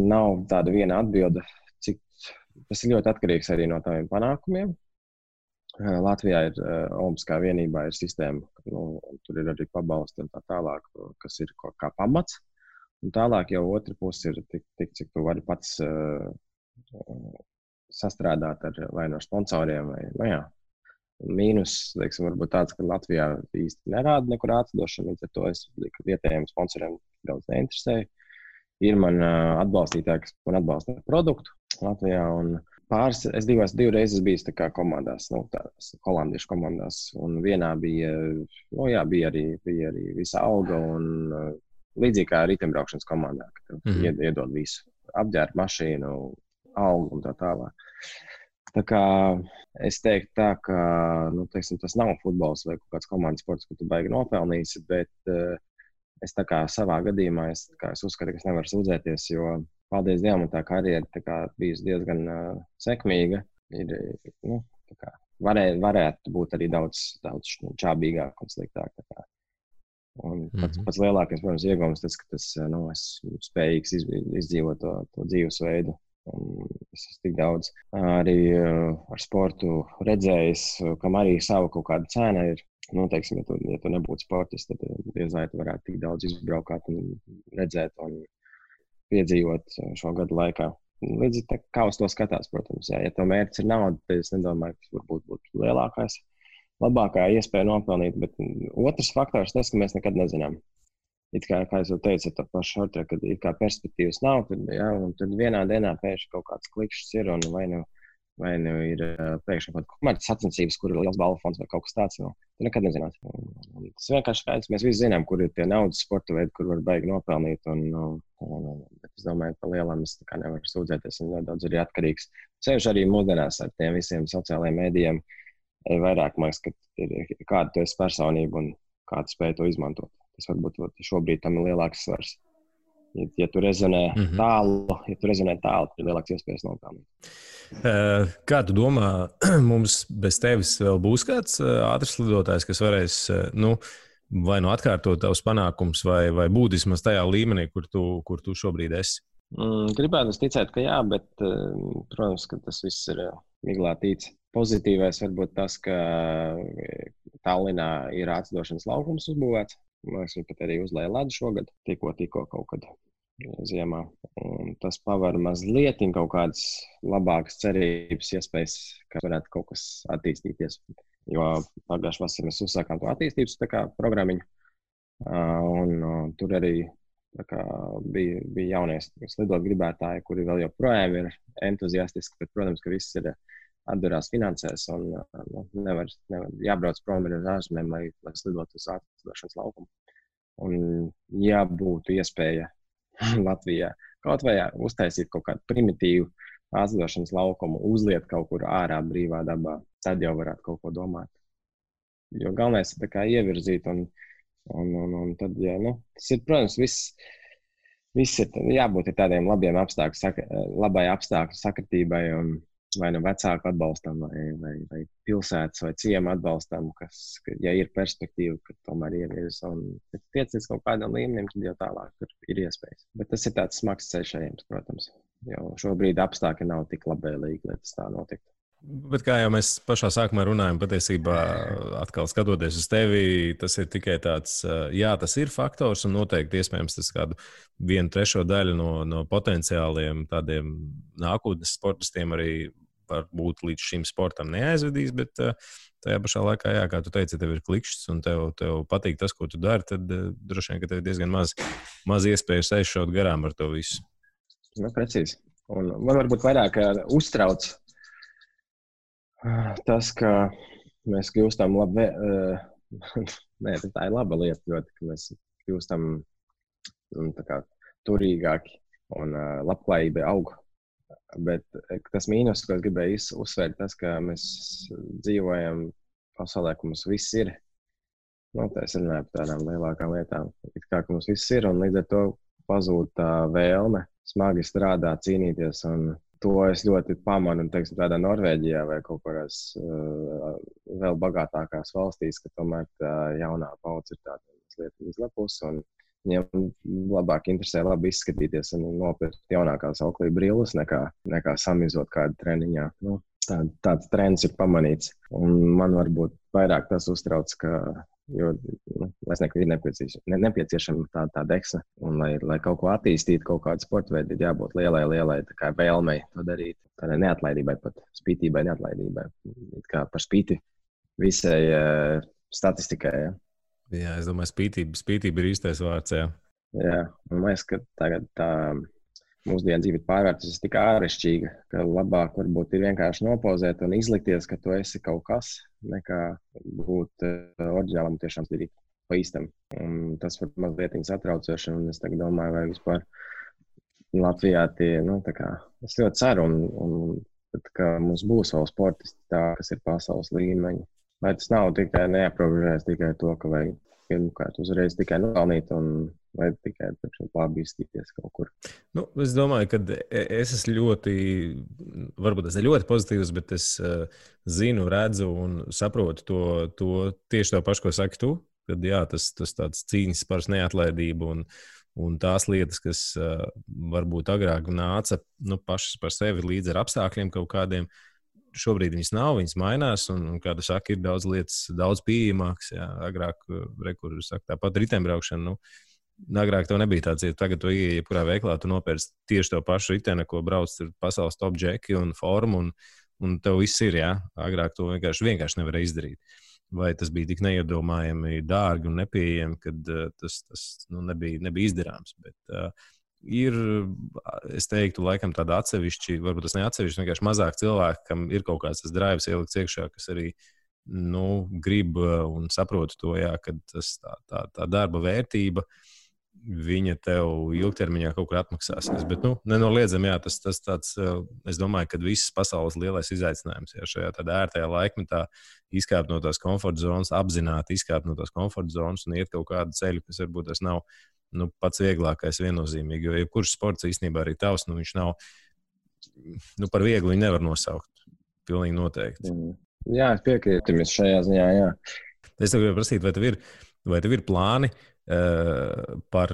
nav tāda viena atbilde, cik tas ir ļoti atkarīgs arī no taviem panākumiem. Latvijā ir Olimpiskā vienībā ir sistēma, tur ir arī pabalsti un tā tālāk, kas ir kā pamats. Un tālāk jau otra puse ir tik, cik tu vari pats sastrādāt vai no sponsoriem. Mīnus, varbūt tāds, ka Latvijā īsti nerāda nekur atdošanu, līdz ar to es vietējiem sponsoriem daudz neinteresēju. Ir man atbalstītāji, kas man atbalsta produktu Latvijā, un es divu reizes biju komandās, holandiešu komandās, un vienā bija arī visa alga, un līdzīgi kā riteņbraukšanas komandā, ka iedod visu, apģērbu mašīnu, algu un tā tālāk. Tā kā es teiktu tā, ka teiksim, tas nav futbols vai kaut kāds komandas sports, ko tu baigi nopelnīsi, bet es tā kā savā gadījumā es uzskatu, ka es nevaru sūdzēties, jo paldies Dievam, tā karjera bijusi diezgan sekmīga. Varētu būt arī daudz čābīgāk un sliktāk. Un pats lielākais, protams, iegūms tas, ka esmu spējīgs izdzīvot to dzīvesveidu. Es esmu tik daudz arī ar sportu redzējis, kam arī sava kaut kāda cena ir. Teiksim, ja tu nebūtu sportists, tad diez vai tu varētu tik daudz izbraukāt un redzēt un piedzīvot šo gadu laikā. Līdz kā uz to skatās, protams. Ja to mērķis ir nauda, tad es nedomāju, ka tas varbūt būtu lielākais. Labākā iespēja nopelnīt, bet otrs faktors tas, ka mēs nekad nezinām. Kā es jau teicu, ar to pašu šortē, kad ir kā perspektīvas nav, tad vienā dienā pēkšņi kaut kāds klikšķis ir un vai nu ir pēkšņi kaut kādas sacensības, kur ir liels balvu fonds vai kaut kas tāds. Tu nekad nezinās. Tas vienkārši skaidrs. Mēs visi zinām, kur ir tie naudas sporta veidi, kur var baigi nopelnīt. Bet es domāju, ka lielām es nevaru sūdzēties. Un ļoti daudz arī atkarīgs. Sevišķi arī mūsdienās ar tiem visiem sociālajiem mēdījiem. Vairāk māks, ka ir kāda tu esi personība un kāda spēja to izmantot. Tas varbūt šobrīd tam ir lielāks svars. Ja tu rezonē tālu, tad ir lielāks iespējas nopelnīt.
Kā tu domā, mums bez tevis vēl būs kāds ātrs lidotājs, kas varēs vai atkārtot tavus panākumus, vai būt vismaz tajā līmenī, kur tu šobrīd esi?
Gribētu ticēt, ka jā, bet, protams, ka tas viss ir miglā tīts. Pozitīvais varbūt tas, ka Tallinā ir ātrlidošanas laukums uzbūvēts. Mēs pat arī uzlēja ledu šogad, tikko kaut kad ziemā. Un tas paver mazliet kaut kādas labākas cerības, iespējas, ka varētu kaut kas attīstīties. Jo pagājušajā vasarā mēs uzsākām to attīstības programmiņu. Un tur arī bija jaunie slidot gribētāji, kuri vēl joprojām ir entuziastiski, bet, protams, ka viss ir atdurās finansēs un nevar jābrauc prom ar ārzemēm, lai slidot uz ātrlidošanas laukumu. Un ja būtu iespēja Latvijā kaut vai uztaisīt kaut kādu primitīvu ātrlidošanas laukumu, uzliet kaut kur ārā brīvā dabā, tad jau varētu kaut ko domāt. Jo galvenais ir ievirzīt un tad, tas ir, protams, viss ir jābūt tādiem labiem labai apstākļu sakritībai un vai vecāku atbalstam, vai pilsētas vai ciema atbalstam, ja ir perspektīva, ka tomēr ievirs un tiec līdz kaut kādam līmenim, tad jau tālāk ir iespējas. Bet tas ir tāds smags ceļš ejams, protams, jo šobrīd apstākļi nav tik labvēlīgi, lai tas tā notiktu.
Bet kā jau mēs pašā sākumā runājam, patiesībā atkal skatoties uz tevi, tas ir tikai tāds, jā, tas ir faktors un noteikti iespējams tas kādu 1/3 daļu no potenciāliem tādiem nākotnes sportistiem arī varbūt līdz šim sportam neaizvedīs, bet tajā pašā laikā, jā, kā tu teici, tev ir klikšķis un tev patīk tas, ko tu dari, tad droši vien, ka tev ir diezgan maz iespējas aizšaut garām ar to visu.
Precīzi. Un man varbūt vairāk uztrauc tas, ka mēs kļūstam labi, tā ir laba lieta ļoti, ka mēs kļūstam turīgāki un labklājība aug. Bet tas mīnus, ko es gribēju uzsvērt, tas, ka mēs dzīvojam pasaulē, ka mums viss ir. Tā es runāju par tādām lielākām lietām. Kā ka mums viss ir un līdz ar to pazūd tā vēlme smagi strādāt, cīnīties un to es ļoti pamanu, teiksim, tādā Norvēģijā vai kaut kādās vēl bagātākās valstīs, ka tomēr tā jaunā paudze ir tāda mazliet izlepus un viņiem labāk interesē labi izskatīties un nopirkt jaunākās auklī brilles nekā samizot kādu treniņā. Tāds trends ir pamanīts. Un man varbūt vairāk tas uztrauc, jo es neku ir nepieciešama tā deksme. Un lai kaut ko attīstītu, kaut kādu sporta veidu, ir jābūt lielai vēlmei to darīt. Tādai neatlaidībai pat, spītībai, neatlaidībai. Kā par spīti visai statistikai, ja.
Jā, es domāju, spītība ir īstais vārds, jā.
Jā, un man liekas, ka tagad tā mūsdienu dzīve ir pārvērtusies tik āršķirīga, ka labāk varbūt ir vienkārši nopozēt un izlikties, ka tu esi kaut kas, nekā būt oriģinālam tiešām darīt pa īstam. Un tas var mazliet satraucoši, un es tagad domāju, vai vispār Latvijā tie, es ļoti ceru un ka mums būs vēl sportisti tā, kas ir pasaules līmeņa. Lai tas nav tikai neaprobežojas tikai to, ka vajag pirmkārt uzreiz tikai nopelnīt un vai tikai pārbīstīties kaut kur.
Nu, es domāju, ka es esmu varbūt tas ir ļoti pozitīvs, bet es zinu, redzu un saprotu to tieši tā pašu, ko saki tu, kad jā, tas tāds cīņas par neatlaidību un tās lietas, kas varbūt agrāk nāca pašas par sevi līdz ar apstākļiem kaut kādiem. Šobrīd viņas nav, viņas mainās, un kā tu saki, ir daudz lietas, daudz pieejamākas. Jā, agrāk, tāpat riteņbraukšana, agrāk tev nebija tāds, ja tagad tu ieeji jebkurā veiklā, tu nopērci tieši to pašu riteni, ko brauc tur pasaules top džeki un formu, un tev viss ir, jā. Agrāk to vienkārši nevarēja izdarīt. Vai tas bija tik neiedomājami dārgi un nepieejami, kad tas nebija izdarāms. Bet, ir, es teiktu, laikam tāda atsevišķi, varbūt tas neatsevišķi, vienkārši mazāk cilvēki, kam ir kaut kāds tas drives ielikts iekšā, kas arī grib un saprot to, jā, ka tā darba vērtība, viņa tev ilgtermiņā kaut kur atmaksāsies. Bet, nenoliedzami, jā, tas tāds, es domāju, ka visas pasaules lielais izaicinājums, jā, šajā tādā ērtajā laikmetā izkāpt no tās komforta zonas, apzināti izkāpt no tās komforta zonas un iet kaut kādu ceļu, kas varbūt tas nav pats vieglākais viennozīmīgi, jo jebkurš sports īstenībā arī tavs, viņš nav, par vieglu viņu nevar nosaukt. Pilnīgi noteikti.
Jā, es piekrītu jums šajā ziņā, jā.
Es tev gribēju prasīt, vai tev ir plāni par,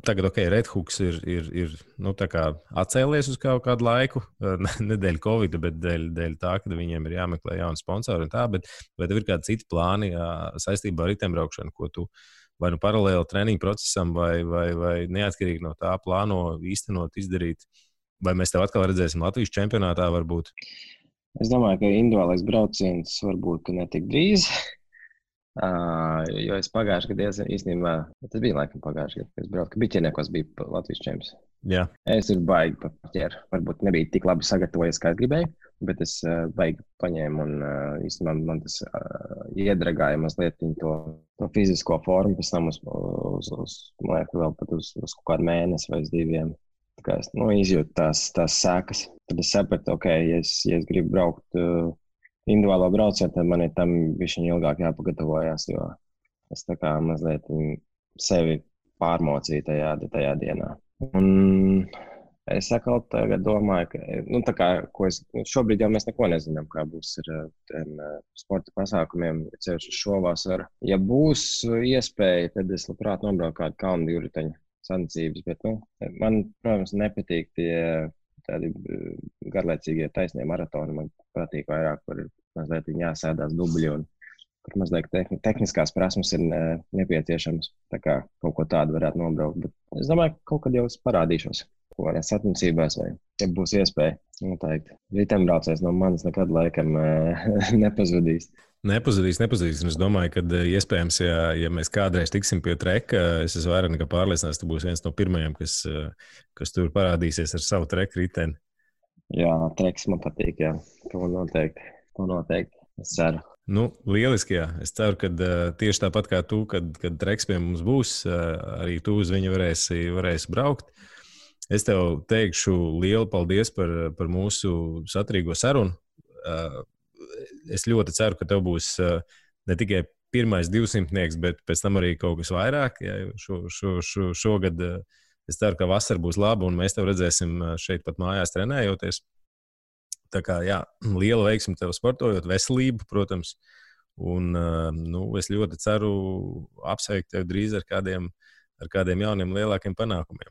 tagad, Red Hooks ir tā kā atcēlies uz kaut kādu laiku, ne dēļ Covid, bet dēļ tā, ka viņiem ir jāmeklē jauni sponsori un tā, bet vai tev ir kādi citi plāni saistībā ar riteņbraukšanu, ko tu vai paralēli treniņu procesam, vai neatkarīgi no tā plāno īstenot, izdarīt, vai mēs tev atkal redzēsim Latvijas čempionātā varbūt?
Es domāju, ka individuālais brauciens varbūt ne tik drīz, jo es pagājušajā gadā īstenībā, tas bija laikam pagājušajā gadā, kad es braucu, ka biķerniekos bija Latvijas čempions.
Jā.
Es ir baigi paķēru, varbūt nebija tik labi sagatavojies, kā es gribēju, bet es baigi paņēmu un īstenībā man tas iedragāja mazliet to fizisko formu, pēc tam uz man liekas, vēl pat uz kaut kādu mēnesi vai uz 2. Tā kā es izjūtu tās sēkas. Tad es sapratu, ja es gribu braukt individuālo braucienu, tad man ir tam bišķiņ ilgāk jāpagatavojās, jo es tā kā mazliet sevi pārmocīju tajā dienā. Un es atkal tagad domāju, ka šobrīd jau mēs neko nezinām, kā būs ar tiem sporta pasākumiem, ceļš uz šo vasaru. Ja būs iespēja, tad es labprāt nobraucu kādu kalnu divriteņu sacensības, bet man, protams, nepatīk tie tādi garlaicīgie taisnie maratoni. Man patīk vairāk, kur ir mazliet jāsēdās dubļi un kur mazliet tehniskās prasmes ir nepieciešams. Tā kā kaut ko tādu varētu nobraukt. Bet es domāju, ka kaut kad jau es parādīšos. Ko arī sacensībās vai, ja būs iespēja, noteikti. Riteņbraucējs no manis nekad laikam nepazudīs.
Nepazudīs. Un es domāju, ka iespējams, ja mēs kādreiz tiksim pie treka, es esmu vairāk nekā pārliecināts, tu būsi viens no pirmajiem, kas tur parādīsies ar savu treku riteni. Jā,
treks man patīk, jā. To noteikti. Es ceru.
Lieliski, jā. Es ceru, ka tieši tāpat kā tu, kad treks pie mums būs, arī tu uz viņu varēsi braukt. Es tev teikšu lielu paldies par mūsu saturīgo sarunu. Es ļoti ceru, ka tev būs ne tikai pirmais 200, bet pēc tam arī kaut kas vairāk. Ja, šogad es ceru, ka vasara būs laba un mēs tev redzēsim šeit pat mājās trenējoties. Tā kā, jā, liela veiksme tev sportojot, veselību, protams. Un es ļoti ceru apsveikt tev drīz ar kādiem jauniem lielākiem panākumiem.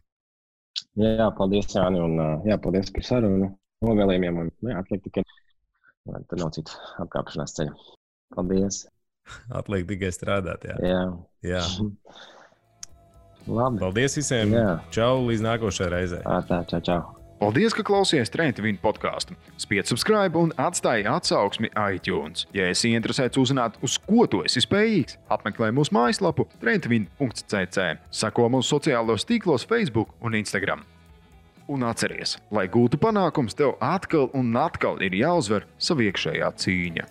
Jā, paldies, Jāni, un paldies par sarunu novēlējumiem. Un atliek tikai, tur nav citu apkāpšanās ceļu. Paldies.
Atliek tikai strādāt,
jā.
Jā.
Labi.
Paldies visiem.
Jā.
Čau, līdz nākošajai reizei.
Čau.
Paldies, ka klausījāties Train to Win podcastu. Spied subscribe un atstāj atsauksmi iTunes. Ja esi interesēts uzzināt, uz ko tu esi spējīgs, apmeklē mūsu mājaslapu traintovin.cc. Seko mūsu sociālos tīklos Facebook un Instagram. Un atceries, lai gūtu panākums, tev atkal un atkal ir jāuzvar sava iekšējā cīņa.